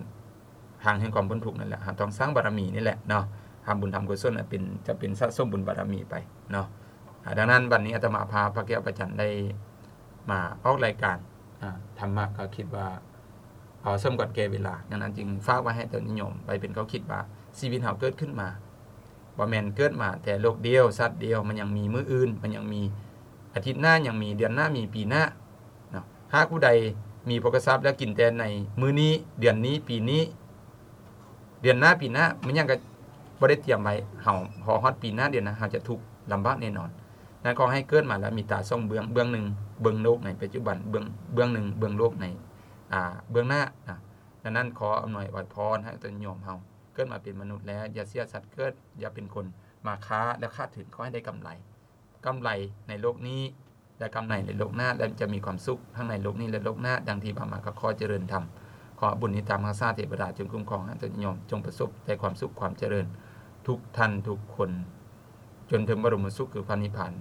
ທາງແຫ່ງຄວາມພົ້ນທຸກນັ້ນແຫຼະ. ເຮົາຕ້ອງສ້າງບາລະມີນີ້ແຫຼະເນາະ ທຳບຸນທຳກຸສົນເປັນ ຈະເປັນສະສົມບຸນບາລະມີໄປເນາະ. ອ່າ ດັ່ງນັ້ນ ວັນນີ້ອາດຕະມາພາພະແກ້ວພະຈັນໄດ້ມາອອກລາຍການ ອ່າ ທຳມະກໍຄິດວ່າ ເອົາສົມຄວນແກ່ເວລາ. ດັ່ງນັ້ນຈຶ່ງຝາກໄວ້ໃຫ້ຕົນຍາດໂຍມໄວ້ເປັນຂໍ້ຄິດວ່າ ຊີວິດເຮົາເກີດຂຶ້ນມາ ບໍ່ແມ່ນເກີດມາແຕ່ໂລກດຽວ ຊາດດຽວ, ມັນຍັງມີມື້ອື່ນ, ມັນຍັງມີອາທິດໜ້າ, ຍັງມີເດືອນໜ້າ, ມີປີໜ້າເນາະ. ຫາກຜູ້ໃດມີໂພຄະຊັບແລ້ວກິນແຕ່ໃນມື້ນີ້, ເດືອນນີ້, ປີນີ້, ເດືອນໜ້າ, ປີໜ້າ, ມັນຍັງກໍບໍ່ໄດ້ຕຽມໄວ້, ເຮົາ ພໍຮອດປີໜ້າ, ເດືອນໜ້າ, ເຮົາຈະທຸກລຳບາກແນ່ນອນ. ນັ້ນ ຂໍໃຫ້ເກີດມາແລ້ວມີຕາສອງເບື້ອງ, ເບື້ອງໜຶ່ງເບິ່ງໂລກໃນປັດຈຸບັນ, ເບື້ອງ ເບື້ອງໜຶ່ງເບິ່ງໂລກໃນ ອ່າ ເບື້ອງໜ້ານະ. ດັ່ງນັ້ນ ຂໍອຳນວຍອວຍພອນໃຫ້ຕົນຍາດໂຍມເຮົາເກີດມາເປັນມະນຸດແລ້ວ ຢ່າເສຍສັດເກີດ, ຢ່າເປັນຄົນມາຄ້າແລ້ວຂາດທຶນ, ຂໍໃຫ້ໄດ້ກຳໄລ, ກຳໄລໃນໂລກນີ້ ແລະ ກຳໄລໃນໂລກໜ້າ ແລະ ຈະມີຄວາມສຸກທັງໃນໂລກນີ້ ແລະ ໂລກໜ້າ. ດັ່ງທີ່ວ່າມາ ກໍຂໍຈະເລີນທຳ. ຂໍບຸນທີ່ຕາມຮັກສາເທວະດາຈົ່ງຄຸ້ມຄອງໃຫ້ຕົນຍາດໂຍມ, ຈົ່ງປະສົບແຕ່ຄວາມສຸກຄວາມຈະເລີນທຸກທ່ານທຸກຄົນ ຈົນເຖິງບະລົມສຸກຄືພະນິບພານ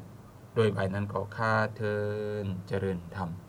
ໂດຍໄວນັ້ນກໍຂ້າເທີ້ນ. ຈະເລີນທຳ.